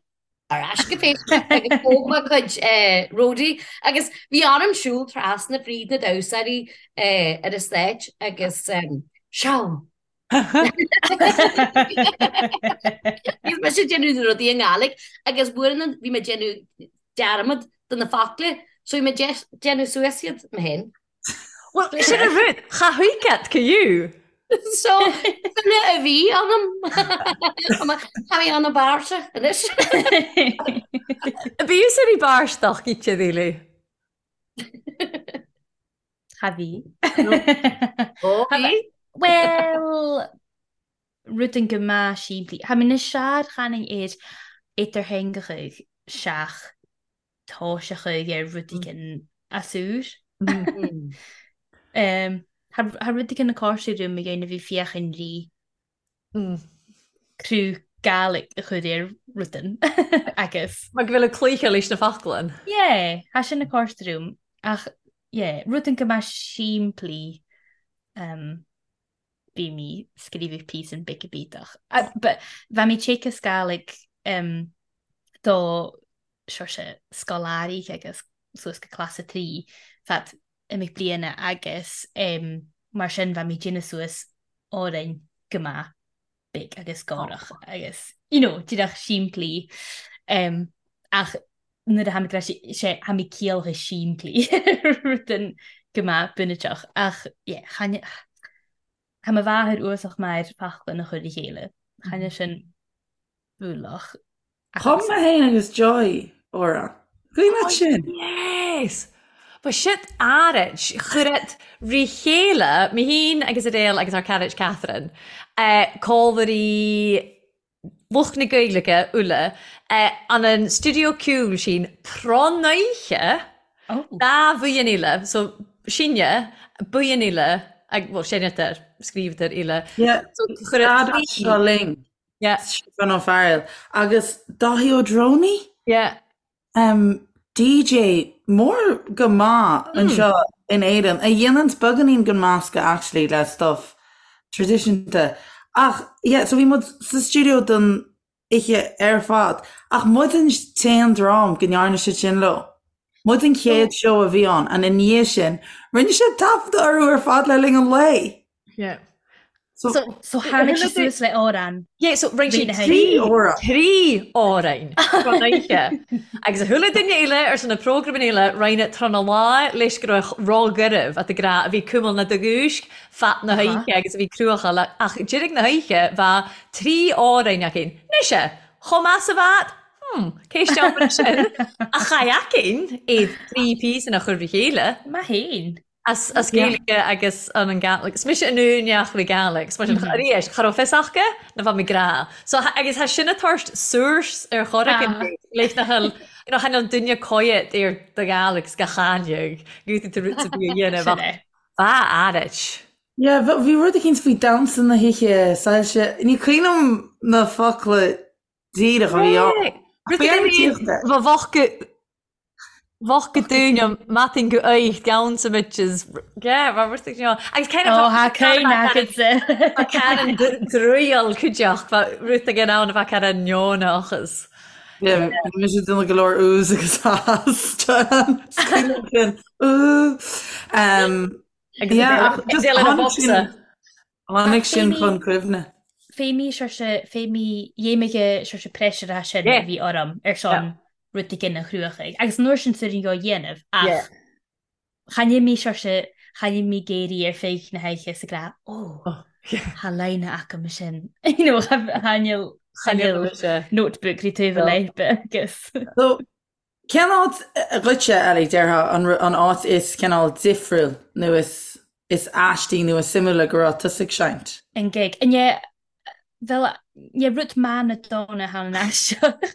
ar ais go Facebook agus thóg mé cuid Rody agus bhí orm siúl trasna fríd na damhsóirí ar an stage agus seó! Bhí mise ag déanamh na rudaí i nGàidhlig agus uaireanta bhí mé ag déanamh dearmad de na focla so bhí mé ag déanamh suas iad mé féin. Well, sin an rud, cha thuigfead go you. So, file a bhí ionam. Tá mé ana bháirseach anois. Bhí fhios ar í báirsteach, gíte dhílí. Cha bhí. Ó, bhí? Well, rudan go maith simplí. Tha mi na sear-chanainn air idirtheangach seach toiseachadh ar rud éigin as úr. Tha rud éigin ag cur orm a dhéanamh bhí féachaint rí cruth Gaelic a chur ar rudan agus. Mar go bhfuil ag cloíche leis na foclain. Yeah, tha sin ag cur orm ach yeah, rudan go maith simplí bhí mé scríobhadh píosan beag bídeach. But bha mi téacs Gàidhlig do saoirse scoláirí agus suas go clas a 3 fad imeacht bliana agus mar sin bha mi déanamh suas òrain go maith beag agus gàireach agus you know díreach simplí ach nuair a tha mi sé tha mi ciallach simplí rudan go maith bunúsach ach yeah chan Tá mo mháthair uasach mar faclainn a chur le chéile. Chan eil sin bualach. Chum mé féin agus Joy amhrán. Cuimhin leat sin? Yes! Ba shit áirid. Chuir rí chéile, mé féin agus Adele agus ár caraid Catherine, cómhairí lucht na Gaeilge uile, an an stiúideo ceoil sin tráthnóiche dá bhuíon eile, so sinne, buíon eile, bhuel seinnetar, scríobhtar eile. Yeah, so chuir seo linn. Yeah. Stiofán Ó Fearghail agus Dáithí Ó Drónaí? Yeah. Um, DJ mór go maith anseo in Éirinn a dhéananns beagáinín den meascadh actually le stuff traidisiúnta. Ach yeah, so bhí muid sa stiúideo don oíche ar fad ach muid an t-aon dream go ndearna siad sin leo. Muid an chéad seó a bhí ann and i ndiaidh sin rinne siad taifeadadh orthu ar fad le linn an lae. Yeah. So, so tháinig sí suas le amhrán. Yeah, so rinne sí trí amhrán don oíche. Agus a chuala duine eile ar son na prógraim eile rinne tráth na lá leis go raibh róghairbh at a grá a bhí cumhal na do-dhúisc fad na hoíche agus a bhí cruachadh le ach deireadh na hoíche bheadh trí amhrán acu. Mise, chomh maith 's a bheadh? Hmm, cé steall sin? Ach chaith aicinn iad trí píosa a chur le chéile. Maith fhéin. As as Gaeilge agus an an Gàidhlig. 'S mise an úineach le Gàidhlig. 'S mar sin arís, cha raibh fios aca na bheadh mé grá. So agus tha sin a' tabhairt source ar chor éigin leis nach bhfuil you know chan eil duine coyet ar do Ghàidhlig 's gach aine gútaí tú rud a bhí a dhéanamh ach bha áirid. Yeah, bhí rud eicínt faoi damhsa na hoíche, soilse, ní cuimhin liom na focla díreach a bhí ann. Rud éigin bha bheadh go Bheadh go dúine matin go oich down so much as yeah mar rud you know agus kind of Oh, tha cuimhne agatsa. Tá Karen druíoll cuideachta bha rud éigin ann a bheadh Karen neonachas. Yeah, bhí mise ag déanamh go leor oohs agus ahs Joanne. Is cuimhin liom sin. Ooh. Um, Agus yeah, ach just Adele ina tháinig bocsa. sin Tháinig sin chun cuimhne. Fé mí saoirse, fé mí dhéimige saoirse pressure a sin a bhí orm ar son rud éigin a chruachaigh. Agus an uair sin suirin dhá dhéanamh ach chan fheil mé saoirse, chan fheil mé géirí ar feadh na hoíche sa gcrá, ó, tha line agam sin. You know, chan fheil, chan fheil notebook ri taobh a leidhbe agus. So, Cén áit dhuitse, Ellie, déarfá, an áit is cineál difriúil nó is is aistí nó is suimiúla go raibh tusa ag seinnt? An gig. Ní, bhuel, ní rud maith na dona thall an aisteach.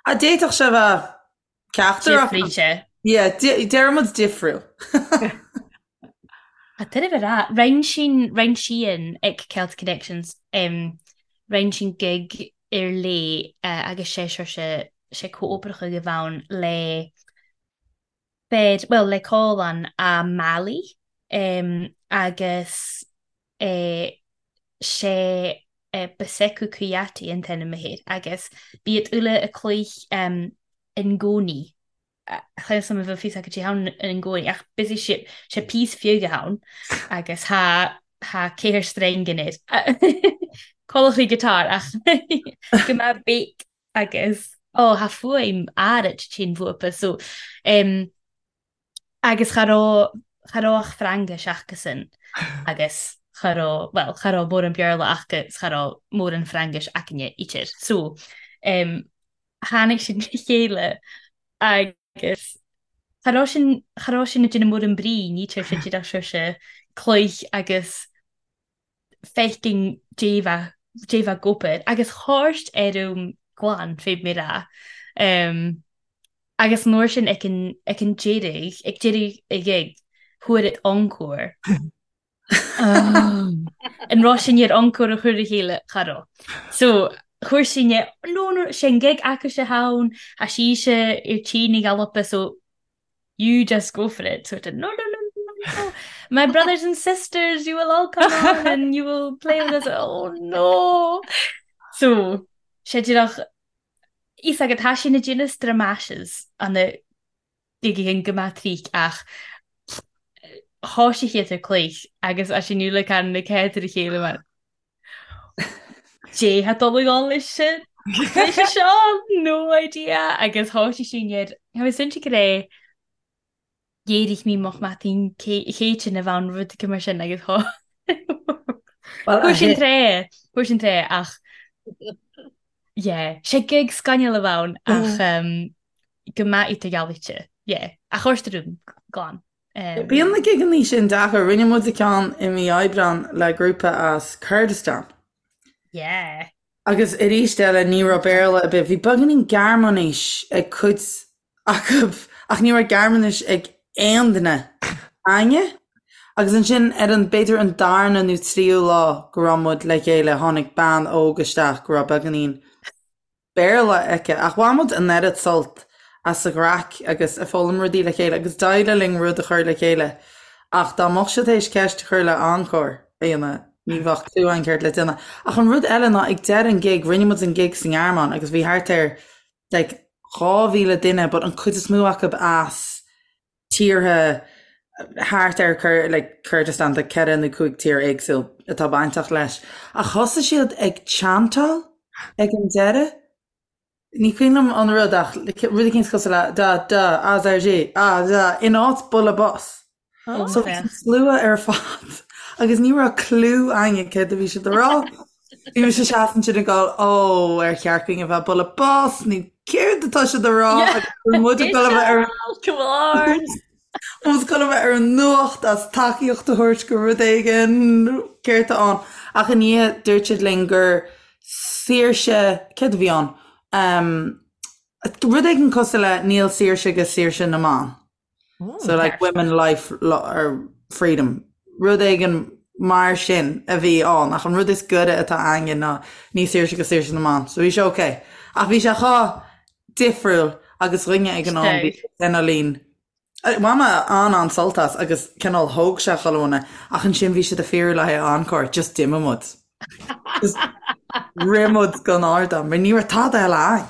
Ah, d'fhéadfadh sé bheith ceachtar acu. Difríte. Yeah, deireann muid difriúil. Tá tuilleamh a rá. Rinne sin, rinne sí an ag Celtic Connections, rinne sin gig ar léi agus sé seo sé sé comhoibreacha a bheann le fer, bhuel le Comhlann a Mali agus sé Bassekou Kouyaté an t-ainm air agus b'iad uile a cloích in gcónaí. Chan fhios a'm an bhfuil fios acu cé ann in gcónaí ach busy sé sé píos fiúga ann agus tha tha ceathair streng in air. Codlachtaí guitar ach go mbeadh béic agus ó tha fuaim áirid tinn bhuaipe so em agus cha raibh cha raibh ach Frangais acusan agus cha raibh bhuel cha raibh mórán Béarla acu 's cha raibh mórán Frangais aicne idir so em tháinig siad le chéile agus cha raibh sin, cha raibh sin ag déanamh mórán brí, ní tar sé díreach saoirse cloich agus. feicim dé bheith ag obair agus thabhairt ar um glan fé mé rá. Agus an uair sin ag an ag an deireadh ag deireadh a gig fuair it encore. An raibh sin ar encore a chur a chéile cha raibh. So chuir sin no no sé an gig acu sé ann a sí sé ar tí na Gaillimhe so you just go for it. Sort of, no, no, no, no, no. My brothers and sisters, you will all come on and you will play with us. Oh, no. So, sé díreach is agat tá sé na déanamh stramashes an na gigigin go maith tríc ach thá sé chéad ar cloich agus as sin le can na céad ar a chéile mar Dé ha dul ag dul leis sin leis seo no idea agus thá sé sin ar Tá mé cinnte go raibh D'éirigh mé moch maidin chéitinn a bhean rud go mar sin agus thá Fuair sin tré fuair sin tré ach yeah sé gig scannail a bhean ach um, go maith í ghealaite yeah ach chuir rún glan. Bíonn na gigeanna sin deacair. Rinne muid ceann i mí Aibreán le grúpa as Kurdistan. Yeah. Agus arís eile ní raibh Béarla ar bith. Bhí beagáinín Gearmáinis ag cuid acu ach ní raibh Gearmáinis ag aon duine againne. Agus ansin ar an, b'fhéidir an darna nó tríú lá go raibh muid le chéile tháinig bean óg isteach go raibh beagáinín Béarla aici, ach bhain muid an oiread sult as an gcraic agus ag foghlaim rudaí le chéile agus d'éirigh linn rud a chur le chéile ach dá mbeadh siad théis ceist a chur le encore a dhéanamh ní bheadh clue againn céard le déanamh. Ach an rud eile ná ag deireadh an gig rinne muid an gig sa nGearmáin agus bhí thart ar like 2,000 duine but an cuid is mó acu as tíortha thart ar like Kurdistan tá ceithre nó cúig tír éagsúil atá bainteach leis. Ach thosaigh siad ag chantáil ag an deireadh. Ní cuimhin liom an rud ach rud eicínt cosúil le da da azerji a da in áit bualadh bos. So bhí an slua ar fad agus ní raibh clue againne céard a bhí siad a rá. Bhí mise seasamh ansin ag gabháil ó ar cheart dúinn a bheith bualadh bos nó céard atá siad a rá agus bhí muid ag dul a bheith ar an muid ag dul a bheith ar an nuacht as tacaíocht a thabhairt go rud éigin céard atá ann. Ach i ndiaidh dúirt siad linn gur saoirse céard a bhí ann? Rud éigin cosúil le níl saoirse go saoirse na mban. So like women life or freedom. Rud éigin mar sin a bhí ann ach an rud is gaire atá againne ná ní saoirse go saoirse na mban. So bhí sé ok. Ach bhí sé chomh difriúil agus dhuine ag an am bhí cineáilín Bhain mé an-an-sult as agus cineál thóg sé chuile dhuine ach ansin bhí siad ag fiafraí le haghaidh encore, just d'imigh muid. Just rith muid gon ardán mar ní raibh tada eile againn.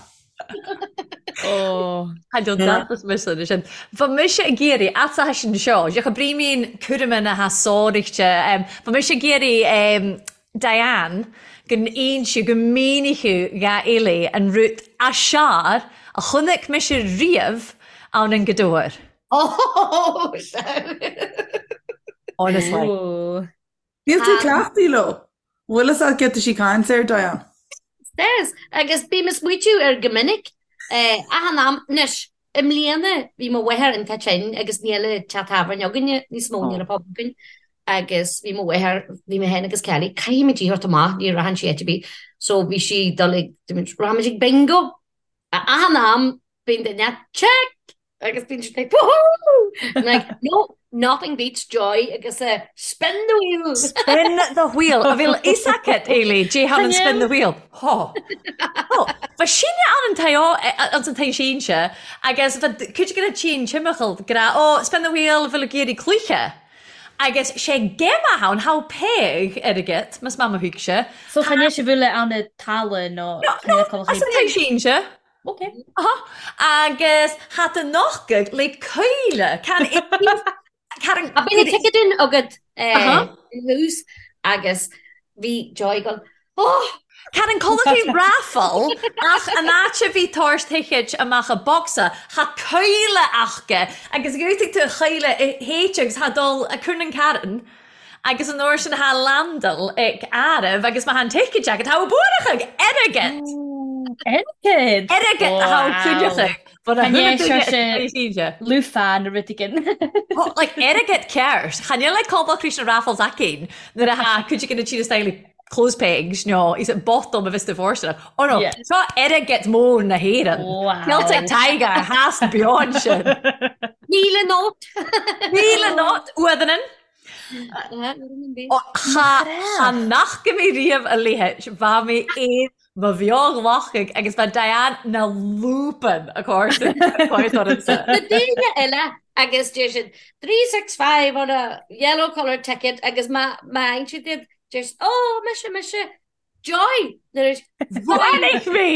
Ó, Tha deas mise sin. Bha mise ag iarraidh, at sin seo, deoch a brímín cúraime na h-sóireachta, bha mise ag iarraidh Diane gun innseadh, gun mínicheadh dha Eilidh an rud as sear a chonaic mise riamh ann an Gaoth Dobhair. Ó, sea. Honestly. Níl tú cleachtaithe leo. Bhfuil fhios agat céard tá sí ag caint air, Diane? Yes, agus bím ag smaoitiú air go minic. Achan am, anois, i mbliana bhí mo mháthair iontach tinn agus níl an teach tábhairne againne níos mó, níl an pub againn, agus bhí mo mháthair, bhí mé féin agus Kelly, caithfimid í a thabhairt amach, ní rachann sí áit ar bith. So bhí sí ag dul ag, rachaimid ag bingo. Achan am bíonn duine, check! Agus bíonn siad like, woohoo! I'm like, no, nothing beats joy agus a spin the wheel. Spin the wheel. A bhfuil fhios agat, Eilidh, dè tha an spin the wheel. Hó. Hó. Bha sinne ann an tae anns an tae sínse agus bha cuid de na tinn timcheall ag ràdh, Ó, spin the wheel, bheil ag iarraidh cluiche. Agus sé geimah ann, tha peig airgead, mas maith mo thuigse. So chan eil sibh uile ann a talamh nó No, no, as an tae sínse. Ok. Aha. Agus tha tu nochgadh le coille. Can Can A bhí na ticéid agat in thús agus bhí Joy ag dul, Oh! Can an culaith raffle ach an áit a bhí tabhairt ticéid amach a bocsa, tha coille aca agus dhútaigh tú a choille i théite agus tha dul a cur an carn Agus an uair sin tha landail ag áireamh agus má tha an ticéad agat, tha buarach airgead! Airgead! Airgead a tha cuideachta. Lúfán nó rud éigin. Like airgead ceart. Chan eil like cobalt Krishna Raffles againn nuair a tha cuid de na tíre style clothes pegs nó is it bottom of Mr. Forster. Oh no, yeah. Seo airgead mór na hÉireann. Wow. Celtic Tiger has beyond sin. Míle nót. Míle nót uadhanan. Cha nach go mé riamh a léithe bha mé aon mo bheo-ghlacadh agus bha Diane na lúpan a chomhairsean. Na daoine eile agus deir siad 365 on a yellow colour ticket agus má fhaigheann siad iad deir siad oh mise mise Joy! Bhuailfidh mé!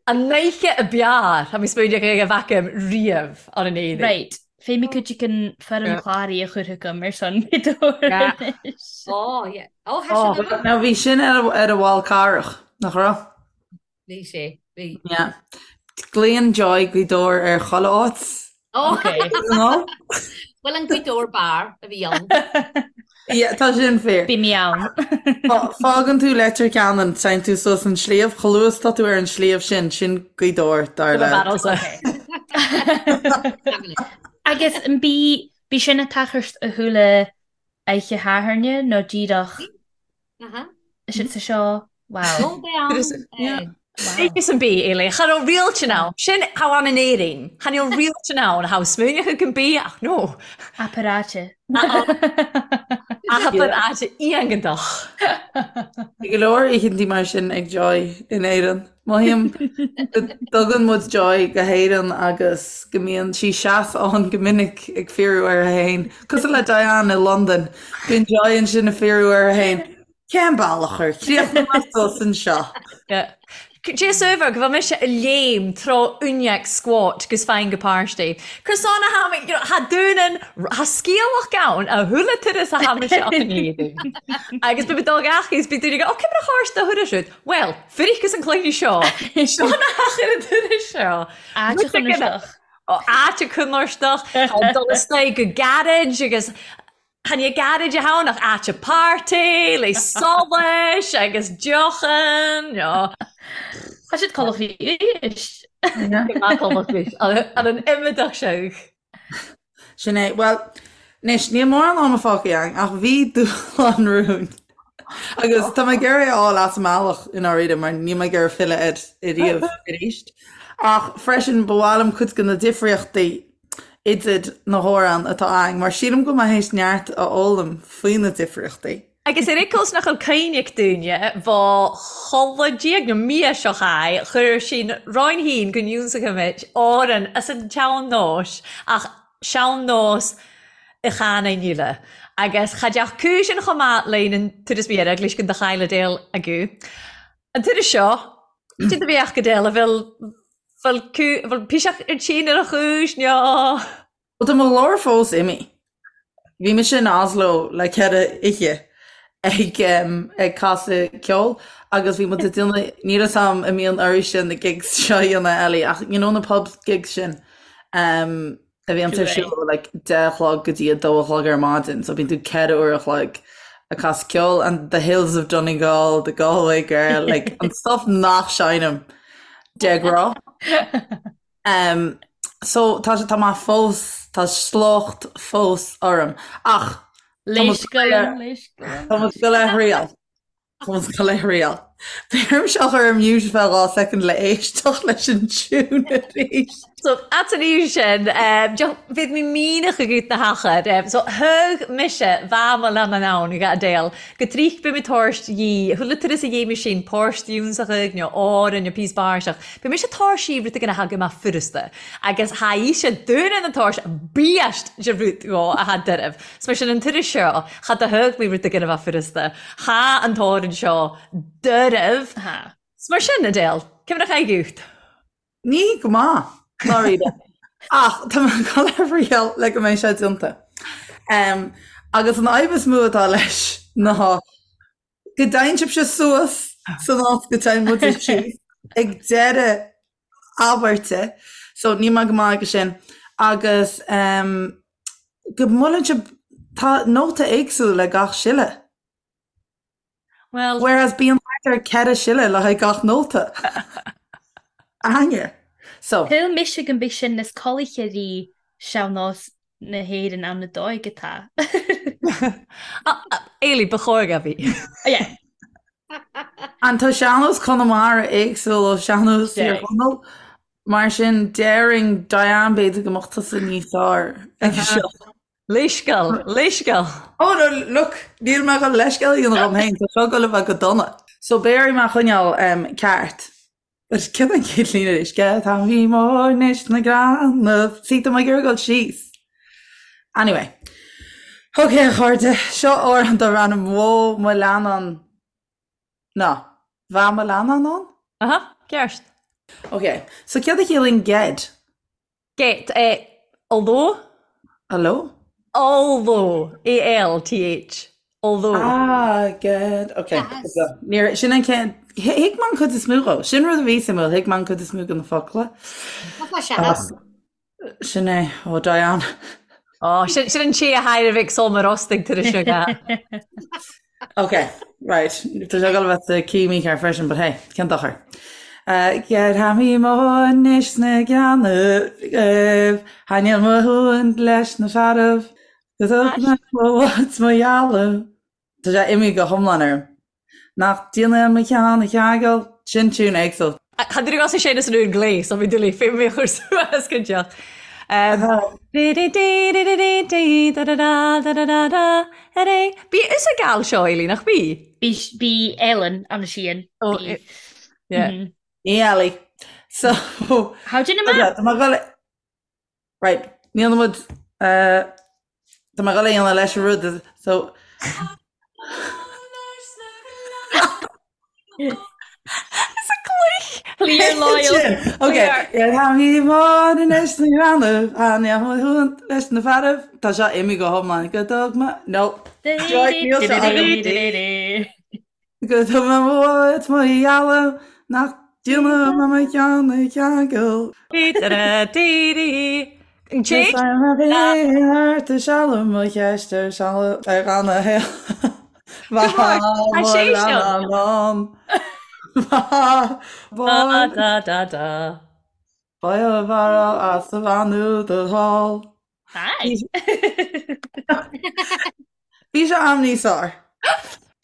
An oíche a b'fhearr tá mé smaoineach ag a bheith agam riamh ar an éadaí. Right, fé mi cuid den foirm chláraithe a chur chugam ar son anois. Oh, yeah. Oh, oh. Now bhí sin ar a bhall carach, nach raibh? Bhí sé, bhí. Yeah. Glaonn Joy Gaoth Dobhair ar chuile áit. Oh. Okay. Bhuel an Gaoth Dobhair bar a bhí ann. Yeah, tá sin fíor. Bhí mé ann. Fágann tú Leitir Ceanainn, téann tú suas an sliabh, chomh luath is tá tú ar an sliabh sin, sin Gaoth Dobhair dar le. Agus an bí bí sin a tachairt a chuala oíche Shathairne nó díreach Is sa seo wow. Is an bí éile Cha raibh rialtan ann sin how an in Éirinn Chan eil rialtan ann how smaoineach an bí ach no. Aparáte. Aparáte iontach. Bhí go leor oícheantaí mar sin ag Joy in Éirinn. Mothaím go dtugann muid Joy go hÉirinn agus go mbíonn sí seasta go minic ag fiafraí uirthi féin. Cosúil le Diane i Londain, bíonn Joy ansin ag fiafraí uirthi féin, cén bealach ar chríochnaigh mé suas anseo? Cé saobhar go bhfuil mise ag léim treo uineach squat gus fine go páistí. Cur sona tha mi, you know, tha dúnan, tha sgialach ann a chuile turas a tha mise up in Éirinn. Agus bhí mé dul gach is bhí daoine ag, ó, cé mar a chárst do thuras siúd? Bhuel, fuiricus an cluiche seo. Seo na hachair an turas seo. Áit a chonairsteach. Áit a chonairsteach, dul isteach go garage agus chan é garage a ann ach áit a party le solais agus deochan. Tá siad codladh arís. Ar an imeadach seo. Sin é. Bhuel, anois, níl mórán ama fágtha againn, ach bhí dúshlán romhainn. Agus tá mé ag iarraidh é a fháil as an mbealach i ndáiríre, mar níl mé ag iarraidh filleadh air ariamh arís. Ach freisin, ba mhaith liom cuid de na difríochtaí idir na hamhráin atá againn, mar sílim go bhfuil mé théis neart a fhoghlaim faoi na difríochtaí. Agus ar fhicheall nach bhfuil cuimhne ag daoine, bha chodladh diaidh nó mí seo chaith, chuir sinn roinn féin go n-ionsachaimid Árann as an tsean-nós, ach sean-nós a chanadh eile. Agus cha dteach cúis an chomh maith linn an turas mhír eaglais go do chaill Adele agu. An turas seo, cad a bheadh go Adele, a bhfuil, bhfuil cú, bhfuil piseach ar tinn ar a chúis, nó. Bhuel tá mo ghlór fós imithe. Bhí mise in Oslo le ceithre oíche ag ag casadh ceoil agus bhí muid ag déanamh, níl a fhios agam an mbíonn oraibhse na gigs seo a dhéanamh Ellie ach you know na pub gigs sin um, a bhíonn ar siúl like 10 a chlog go dtí a 2 a chlog ar maidin so bíonn tú ceithre uair a chloig ag casadh ceoil and the Hills of Donegal, the Galway Girl, like an stuff nach seinnim de ghnáth. Um, so tá sé tá mé fós tá sliocht fós orm ach Léiscealann, léiscealann. Tá muid go le thriail. Tá muid go le thriail. B'fhéidir seo chur ar mute feadh 2 soicind le éisteacht leis an tune arís. So at an aois sin, bhí mé míneach agat na hachair. So thug mise bha mo lean an ann ag Adele go trích bhí mé tabhairt dhi, chuala turas a dhéanamh sin, páirt fhiúnsach nó Árainn nó píos báirseach. Bhí mise tabhairt rud éigin a thagadh amach furasta agus tha ise dúinn an tabhairt beast de rud dhó a tha doirbh. 'S mar sin an turas seo, cha do thug mé rud éigin a bheadh furasta. Tha an t-amhrán seo doirbh. 'S mar sin, Adele, cé mar a chaith gut? Ní go maith, dáiríre. Ach tá mé ag dul a thriail le go mbeidh sé déanta. Agus an fhadhb is mó atá leis ná go dtéann sibhse suas san áit go dtéann muide síos ag deireadh abairte. So níl mé go maith aige sin. Agus go mbuaileann sibh, tá nóta éagsúil le gach siolla. Well. Whereas bíonn thart ar 4 siolla le haghaidh gach nóta. Aithne. So. Thuill mise go mbeidh sin níos colaithe rí sean-nós na hÉireann ann na dóigh atá. Eilí, ba chóir go bhí. Yeah. An tá sean-nós Chonamara éagsúil ó sean-nós Thír Chonaill? Mar sin, déarfainn Diane b'fhéidir go mbeadh tusa níos fearr ag seo. Leithscéal, leithscéal. Oh no, look, níl mé chun leithscéal a dhéanamh dhom féin, tá seo ag dul a bheith go dona. So béarfaidh mé a choinneáil ceart. But cén an chéad líne arís? Ged tha mi mòr nish na grannaibh. See, tá mé ag iarraidh dul síos. Anyway. Ok, a chairde, seo amhrán darb ainm Bhó mo leannán. Ná, Bha mo leannán ann? Aha, ceart. Ok, so céard a chiallaíonn ged? Get, eh, although? Hello? Although, A-L-T-H, although. Ah, get, ok. Yes. Níor, sin an chéad, thuig mé an cuid is mó dhó. Sin rud a bhí suimiúil, thuig mé an cuid is mó de na focla. Tá sé seans. Sin é, ó Diane. Ó, sin, sin an té a thair ag Sol mar ostaigh tar éis seo ga. Ok, right. Tá sé ag dul a bheith sa key mícheart freisin, but hey, cén dochar. Ged tha mi mòr nish na grannaibh, Tha níl mo shuan leis na fearaibh, Go dtug mé mo bhod 's mo dhealbh. Tá sé imithe go hiomlán orm. Nach déanaí mo cheann a cheangal, sin tiún éagsúil. Cha dtig as sé san úr glé, so bhí dulí fé mé chur suas go deoch. Bí is a gal seo Eilí nach bí? Bí Ellen an síon. Oh, yeah. Ní Ellie. So How do you know? Tá mé ag dul Right, níl muid Tá mé ag dul a dhéanamh leis an rud so Is a cloich! Clear loyal. Ok, Tha mi mòr nish na grannaibh, Tha níl mo shuan leis na fearaibh, Tá seo imithe go hiomlán go dtug mé No. Joy, níl seo agam. Go dtug mé mo bhod 's mo dhealbh nach déanamh mé mo cheann a cheangal. An té? Is ar a bhí thart a sealbh mo cheist ar sealbh ar gan a shaol. Go mór, tá sé seo. Ba Da da da da. Ba bharra as a bheannú do thall. Hi. Bhí sé am níos fearr.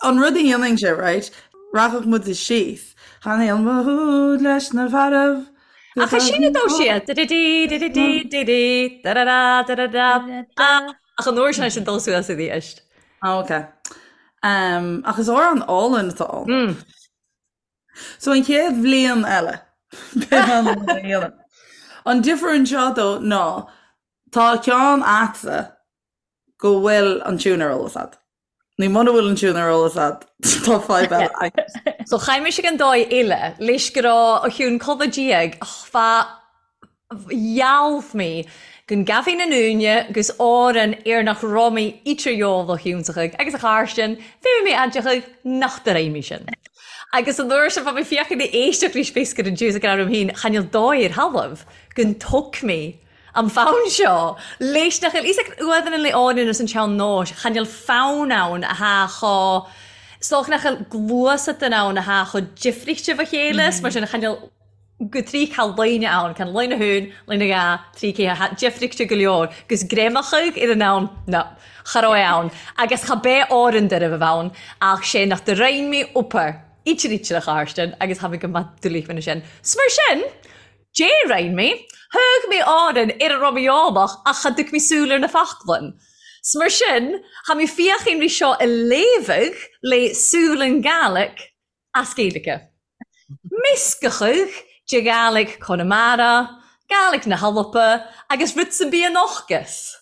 An rud a dhéanfainnse, right, rachadh muid síos. Tha níl mo shúil leis na fearaibh. Ach is sin a dó siad. Di-di-di, di-di-di, di-di, da-da-da, da-da-da. Ach an uair sin sin dul suas i dtí Ah, ok. Um, ach is amhrán álainn atá ann. Mm. So an chéad bhliain eile, beidh an rud a dhéanamh. An difear anseo dó ná tá ceann a'dsa go bhfuil an tiún ar eolas a'd. Ní muna bhfuil an tiún ar eolas a'd, tá fadhb eile agat. So chaith mise an dóigh eile leis go raibh a chiúin codladh diaidh fá dhealbh mé go ngabhfainn an uaine 'gus Árann ar nach raibh mé idir dheabhal shiúnsachaidh agus a chairstean fé mé aidseachaidh nach do raibh mé sin. Agus an uair sin bha mé féachaint ag éisteacht leis bhéas gur an Jews ag rá liom féin chan fheil dóigh ar thalamh go dtug mé an fonn seo leis nach bhfuil fhios ag uaimh an le Árann is an tsean nóis chan fheil fonn ann a tha cho 's dócha nach bhfuil gluasat ann a tha cho difríchte bha chéile 's mar sin chan fheil go dtrí cha loine ann, can loine thún, loine gha, trí cé ha deifrigte go leor, gus greamachadh ar an ann, no, cha raibh ann, agus cha b'é Árann deireadh a bheith ann, ach sé nach do roinn mé upar, ítear ítear a Charstin, agus tha mé go maith doiligh mena sin. 'S mar sin, dé roinn mé, thug mé Árann ar a raibh mé eolach ach cha dtuig mé súil ar na faclainn. 'S mar sin, tha mé fiachain ri seo a léamhadh le súil an Gaelic as Gaeilge. Meascachadh de Ghàidhlig Chonamara, Gàidhlig na hAlba agus rud san bith an ocus.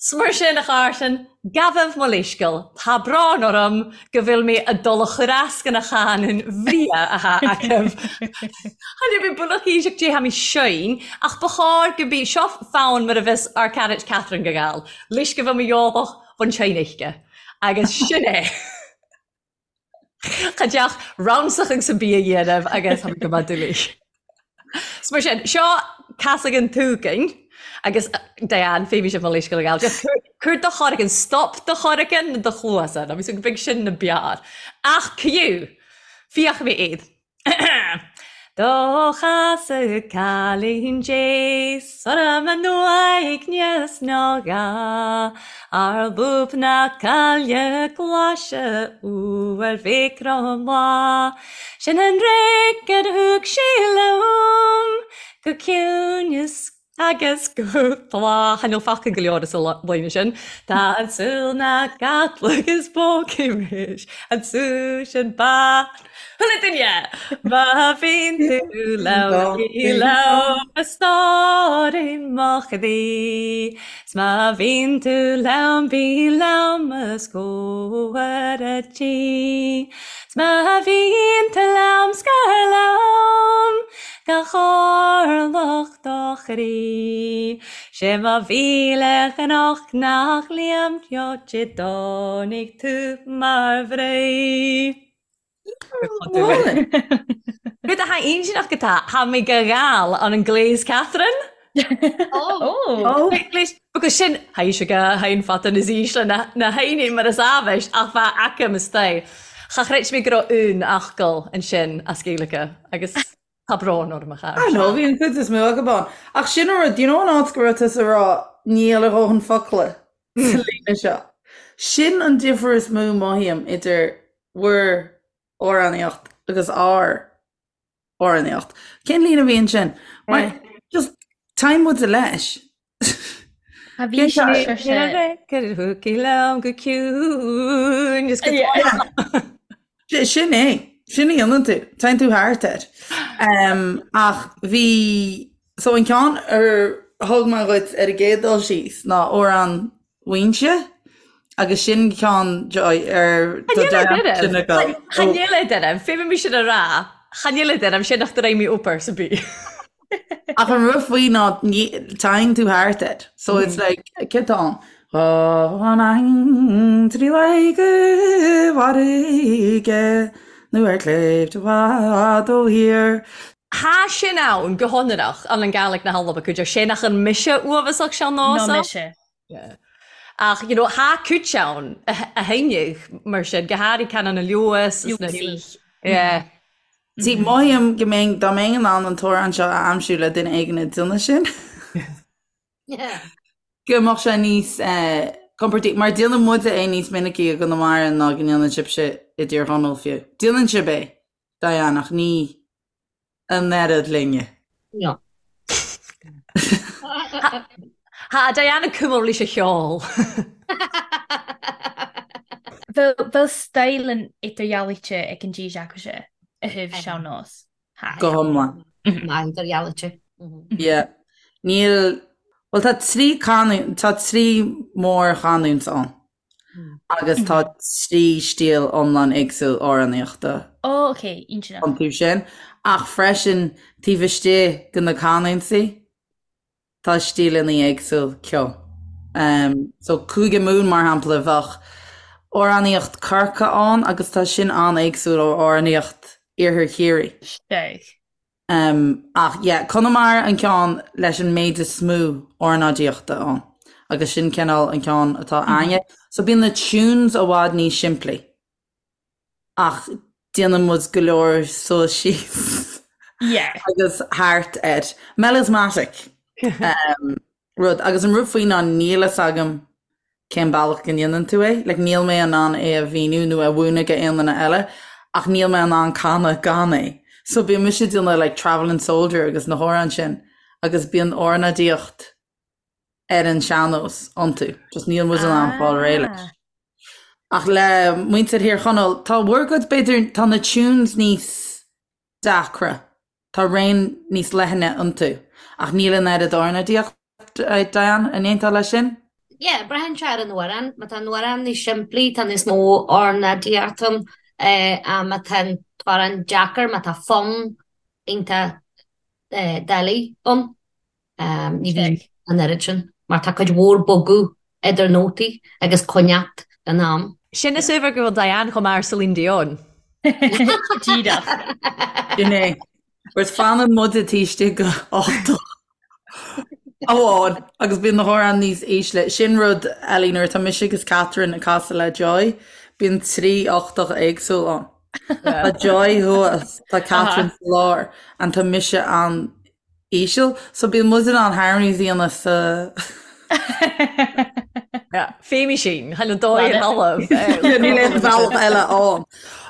'S mar sin, a Chàrtain, gabhaibh mo leithsceal, tá brón orm go bhfuil mé a dul a chur as go na chanúin bhreá athá agaibh. Tha mi buileach aoiseach dè tha mi seinn, ach ba chóir go bí seo fonn mar a bheas ár carait Catherine go Gall, leis go bhfuil mo dheolach bhun tseinn uisce. Agus sin é. Cha deach ransach agus an bia a dhéanamh agus tá go maith doiligh. So mar sin, seo casadh an túcain agus Diane, fé bhí sibh mo leithscéal a ghabháil. Just cuir do chorcan, stop do chorcan na do chluasa, nó bhí go big sin na beár. Ach ciú, fiach mé iad. Do chasadh cailín deas orm in uaigneas ná gá Ar lúb na caille glaise uair mhic Cromleá Sin an raic ar thug sí liom go ciúin is Agus go tláth, chan fheil focal go leor as an líne sin. Tá an tsúil ná gcadlag is bócaí an tsúil sin ba Chuile duine! Má bhíonn tú liom, bí liom, a stóirín mo chroí. 'S má bhíonn tú liom, bí liom os comhair a' tí. 'S má bhíonn tú liom, scar liom gach orlach do chroí. 'Sé mo mhíle chnoc nach liom reoite dtáinig tú mar bhrí. Rud atá intinneach go tá, tha mi gu gàil ann an gléas Catherine. Ó! Because sin, tha si gu h-aon fada nas ísle na h-aoine mar as aibhis ach bha aca mo staigh. Cha chreid mi go raibh aon fhocal ansin as Gaeilge agus Tá brón orm a chara. I know, bhí an chuid is mó acu ann. Ach sin an rud, do you know an áit go raibh tusa ag rá níl a dhóthain focla sa líne seo? Sin an difear is mó mothaím idir bhur amhránaíocht agus ár amhránaíocht. Cén líne a bhí ansin? Mar just téann muide leis. A bhí sé liom go ciúin is go Sin é, sin a dhéanann tú, téann tú thart air. Ach bhí, so an ceann ar thug mé dhuit ar an gcéad dul síos ná amhrán Mhuínse agus sin ceann Joy ar do sin agam. Chan eil e daoibh, fé sin a rá, chan eil e daoibh, sin nach do raibh mé obair sa bí. Ach an rud faoi ná téann tú thart air. So it's like, céard atá ann? An trí go bhfarraige nó ar shléibhte i bhfad ó thír. Tha sin ann go hionrach ann an Gàidhlig na h-Alba cuid sé nach an mise uaibheasach sean-nósach. Ná mise. Yeah. Ach, you know, tha cuid ann a thaitneodh mar sin, go háirid Canán na Leodhas. Leodhas. Yeah. See, mothaím go mbeinn, dá mbeinn in ann an t-amhrán seo a aimsiú le duine éigin ag déanamh sin, go mbeadh sé níos compordaí, mar déanann muide é níos minicí i gConamara ná go ndéanann sibhse i dTír Chonaill fiú. Déanann sibh é, Diane, ach ní an oiread linne. No. Tha Diane ag cumadh leis a cheol. Bheil style an idirdhealaithe ag an dís acu-se a thaobh sean-nós. Go hiomlán. Maith idirdhealaithe. Yeah. Níl, bhuel tá trí canúint, tá trí mhórchanúint ann agus tá trí stíl iomlán éagsúil amhránaíochta Ó, ok, intinneach. iontu sin. Ach freisin taobh istigh de na canúintí, Tá stíleanna éagsúil ceoil. So Cúige Mumhan mar shampla bheadh amhránaíocht Corca ann agus tá sin an-éagsúil ó amhránaíocht Iarthar Chiarraí. Steig. Ach yeah, Conamara an ceann leis an méid is mó ornáidíochta ann agus sin cineál an ceann atá againne. So bíonn na tunes i bhfad níos simplí. Ach déanann muid go leor suas síos agus thart air. Melismatic rud. Agus an rud faoi ná níl fhios agam cén bealach go ndéanann tú é. Like níl mé in ann é a mhíniú nó a mhúineadh go aon duine eile ach níl mé in ann canadh gan é. So bíonn mise ag déanamh like Travelling Soldier agus na hamhráin sin agus bíonn ornáidíocht ar an sean-nós iontu. Just níl muid in ann fáil réidh leis. Ach le muintir Thír Chonaill, tá bhur gcuid, b'fhéidir, tá na tunes níos deacra, tá raon níos leithne iontu, ach níl an oiread ornáidíocht, Diane, an aontófá leis sin? Yeah, braitheann sé ar an amhrán. Má tá an amhrán níos simplí, tá níos mó ornáidíocht ann. Má tá an t-amhrán deacair, má tá fonn iontach doiligh ann, Ní bhíonn an oiread sin, mar tá cuid mhór bogadh idir nótaí agus coinneacht in am. Sin is uabhar go bhfuil Diane chomh maith ar Celine Dion. Díreach. Sin é. Whereas fanann muide taobh istigh de ochtach amháin agus bíonn na hamhráin níos ísle. Sin rud eile nuair atá mise agus Catherine ag casadh le Joy, bíonn 3 ochtach éagsúil ann. Tá Joy thuas, tá Catherine sa lár, and tá mise an-íseal, so bíonn muid in ann harmonies a dhéanamh sa. Féimí sin, chaill an dóigh an talamh. Níl aon bhealach eile ann.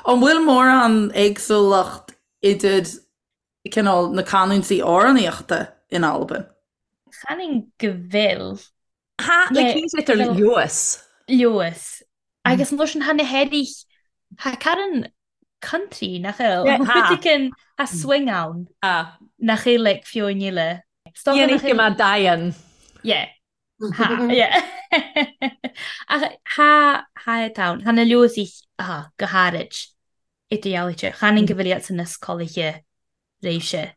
An bhfuil mórán éagsúlacht idir cineál na canúintí amhránaíochta in Albain? Chan go bhfuil. Ha, le cíte tar leoas. Leoas. Agus an sin tha na h-airich tha carn country nach eil. Tha tha swing ann. Nach eil like fiú níle. Dhéanfaidh go mbeadh Diane. Yeah. Ha, yeah. Ach tha tha ann. Tha na leosaich ha, go hairid idirdhealaithe. Chan go bhfuil iad san is colaithe réimse.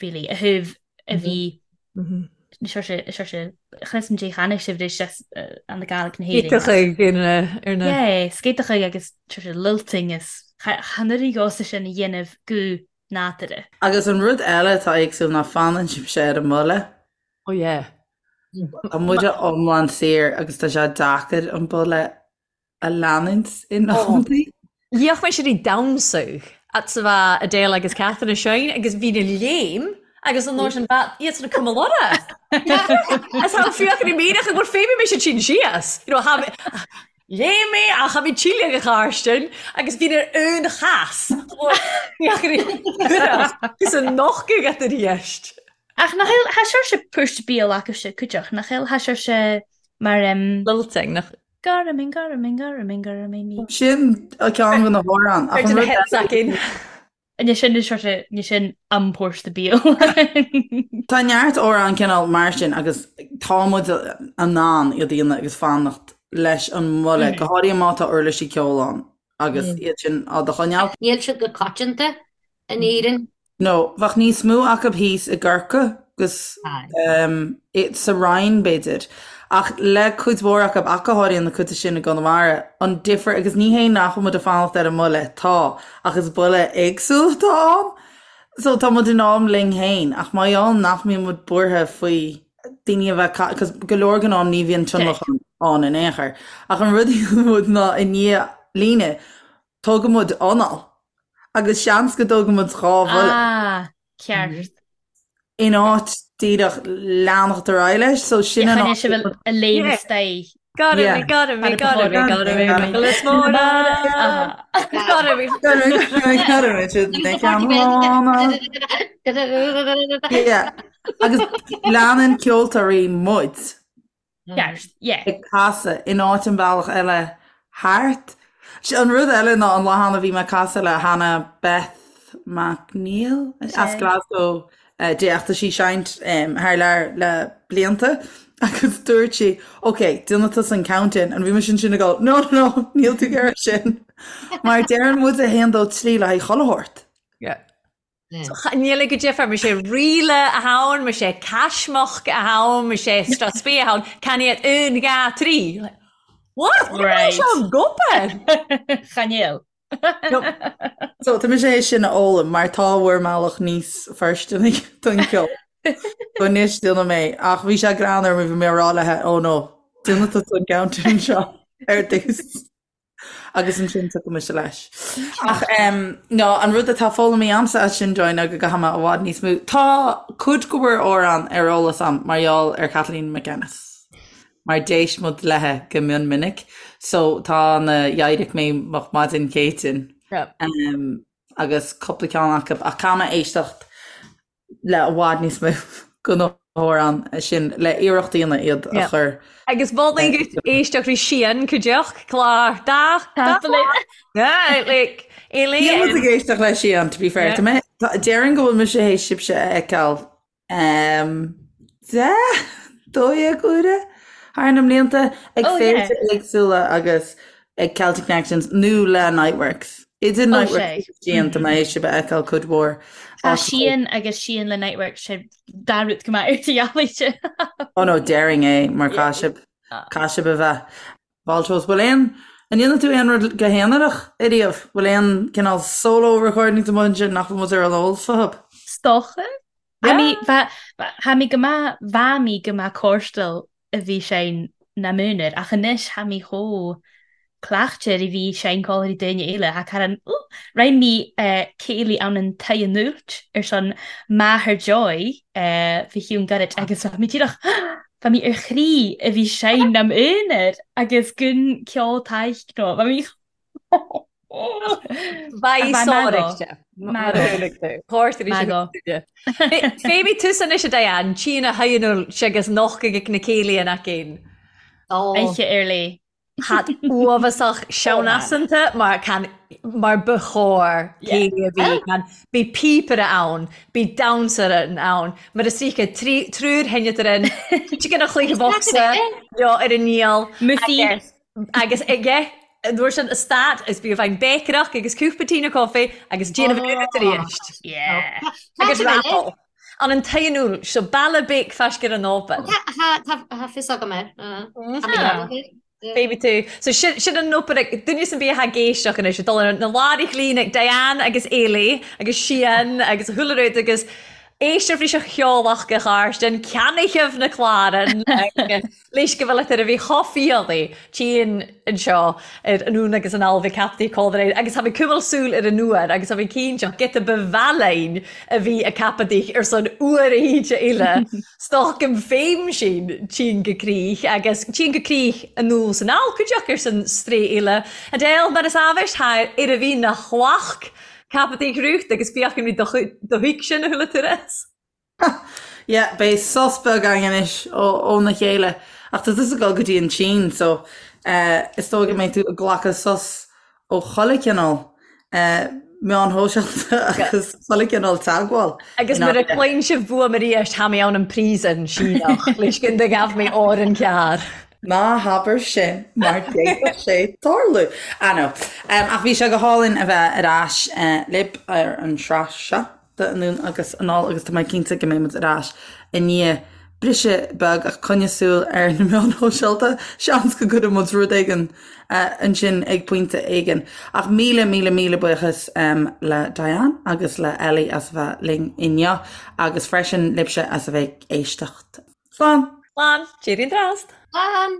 really, a thaobh a bhí Seo chlis an dé cheana sibh leis an na Gaelic na hÉireann. Scéiteacha ar na ar na. Yeah, scéiteacha agus sé lilting is chan oireadh dhósa sin a dhéanamh go nádúrtha. Agus an rud eile atá éagsúil ná fanann sibhse ar an mbuille. Oh yeah. Tá muide iomlán saor agus tá sé deacair an buille a leanúint in amantaí. Liach mé siad ag damhsadh at sa bha Adele agus Catherine Shine agus bhí na léim agus an uair sin bha iad san cuma lora. As tha fiach i míreach go bhfuil féimí mé siad sin síos. You know, tha léim mé ach tha mé tíle go Carstin agus bhí ar aon chas. Fiach agus an nochtadh at ar dheist. Ach nach eil tha sibhse púirt bíol acu cuideach nach eil tha sibhse mar um, Lilting nach Garamin, garamin, garamin, garamin, mi. Sin ceann de na hamhráin. Ach an rud eile. Ní sin is sé ní sin am pórsta bíol. Tá neart amhrán cineál mar sin agus tá muid in ann iad a dhéanamh agus fanacht leis an mbuille, go háirithe má tá uirlisí ceoil ann agus iad sin á do choinneáil. Níl siad go coitianta in Éirinn. No, bheadh níos mó acu thíos i gCorcaigh agus sa Rinn, b'fhéidir. Ach le cuid mhór acu, ach go háirithe na cuid sin i gConamara, an difear, agus ní hé nach bhfuil muid ag fanacht ar an mbuille, tá, ach is buille éagsúil atá ann. So tá muid in am linn féin, ach mar gheall nach mbíonn muid buartha faoi daoine a bheith, cos go leor den am ní bhíonn tionlacan ann in aon chor. Ach an rud a dhéanann muid ná i ndiaidh líne, Tógann muid anáil agus seans go dtógann muid 2 bhuille. Ah, ceart. In áit díreach leanacht ar aghaidh leis, so sin an áit. Sibh a léim isteach. Gotta be, gotta be, gotta be, gotta be, Nicholas Mona. Gotta be. Gotta be, gotta be, Yeah. Agus leanann ceoltóirí muid. Ceart, yeah. ag casadh in áit an bealach eile thart. An rud eile ná an lá cheana bhí mé ag casadh le Hannah Beth MacNeil as Glasgow di ach tá sí ag seinnt thar lear le blianta agus dúirt sí ok, déanfaidh tusa an count-in and bhí mise ansin ag dul no no no níl tú ag iarraidh sin mar deireann muid 1 2 3 le haghaidh chuile shórt. Yeah. Níl ag go difear, mar sé ríle a ann, mar sé caismeach a ann, mar sé straspí a ann, can iad un, ga, trí. What? Right. Seo gopair! Chan eil. So tá mise é sin a fhoghlaim mar tá bhur mbealach níos fóirsteanaí don cheol. So anois déanfaidh mé ach bhí sé greannmhar mar bhí mé ag rá léi oh no, déanfaidh tusa an count-in seo ar dtús. Agus ansin tiocfaidh mise leis. Ach no, an rud atá foghlamtha a'msa as sin Joy ná go gcaithfidh mé i bhfad níos mó. Tá cuid de bhur amhráin ar eolas a'm mar gheall ar Kathleen McEnnis. Mar d'éist muid léithe go mion minic. So tá na D'éirigh mé moch maidin Céitinn agus cúpla ceann acu ach caithfidh mé éisteacht le i bhfad níos mó de na hamhráin sin le iarracht a dhéanamh iad a chur. Agus mholfainn duit éisteacht rí Sian cuideachta clár dá Yeah, like Níl muid ag éisteacht le Sian to be fair. Tá mé déarfainn go bhfuil mise théis sibhse a fheiceáil 10, 12 uaire thar na mblianta ag féilte éagsúla agus ag Celtic Connections nó le Niteworks. Idir Niteworks agus Sian tá mé théis sibh a fheiceáil cuid mhór. Tá Sian agus Sian le Niteworks sé dá rud go maith ar do dhealaíte. Oh no, déarfainn é mar caithfidh sibh, caithfidh sibh a bheith. Fáilte Bhfuil aon, an ndéanann tú aon rud go haonarach ariamh? Bhfuil aon cineál solo recordings amuigh ansin nach bhfuil muid ar an eolas fúthu? 'S dócha. Tha mi, tha mi go maith, bha mi go maith còrstail a bhith sinn nam aonar, ach anois tha mi chomh. cleachtar a bhí seinnceoltóirí daoine eile tha cara an Roinn mí céilí ann an Tigh an Úilt ar son máthair Joy fé chiúin gairid agus bha mi díreach bha mi ar chroí a bhí seinn am aonar agus gun ceol taidhg nó bha mi Bheidh sáraigh Féimidh tusa anois a Diane, tchíonn a haonúil agus noch ag na céilí an aicín. Oíche ar léith. Hat uafásach seanasanta mar can mar ba chóir céilí a bhí can bhí píopaire ann, bhí damhsaire ann, mar is ríce triúr theineadar in, chicken a chluiche bhocsa leo ar an ndíol Musaí. Agus aige an uair sin a stad is bhí a bheinn béiceach agus cúpla tine coffee agus déanamh an tar éis. Agus raffle. An an t-aonúil seo baile béic faisc ar an open. Tá fios agam air. Baby tú. So sin sin an open ag duine san bia ag éisteach anois ag dul ar na láithreach líne ag Diane agus Eilí agus Sian agus a chuile rud agus éistear fríis a cheolach go Chairstin ceannaithe na clárann agus Leis go bhfuil ar a bhí chomh fialaí tinn anseo ar anonn agus anall bhí captaí códra agus tha mi cuimil súil ar an uair agus tha mi cinnte giota ba mhealláin a bhí a ceapadh ar son uair a híde uile stoc im féim sin tinn go crích agus tinn go crích anall is anall cuideach ar son strae uile Adele mar is ábhais thar ar a bhí na chloch ceapadh rúcht agus fiach an rí do thuig sin a thuilleadh turas. Yeah, beidh sos beag againn anois óna chéile. Ach tá tusa ag dul go dtí an tSín, so is dóigh go mbeidh tú ag glacadh sos ó chuile chineál meáin shóisialta agus chuile chineál teagmháil. Agus nuair a chluin sibh fuaim arís, tha mi ann an príosún Síneach, leis gun do ghabh mi òr an ceàrr. Ná habair sin mar d'fhéadfadh sé tarlú. Ah no. Ach bhí sé go hálainn a bheith ar ais libh ar an sraith seo. de Anonn agus Anall agus tá mé cinnte go mbeidh muid ar ais i ndiaidh briseadh beag ach coinnigh súil ar na meáin shóisialta, seans go gcuirfidh muid rud éigin ansin ag pointe éigin. Ach míle míle míle buíochas le Diane agus le Ellie as a bheith linn inniu agus freisin libhse as a bheith ag éisteacht. Slán! Slán! Cheerio an trast! Slán!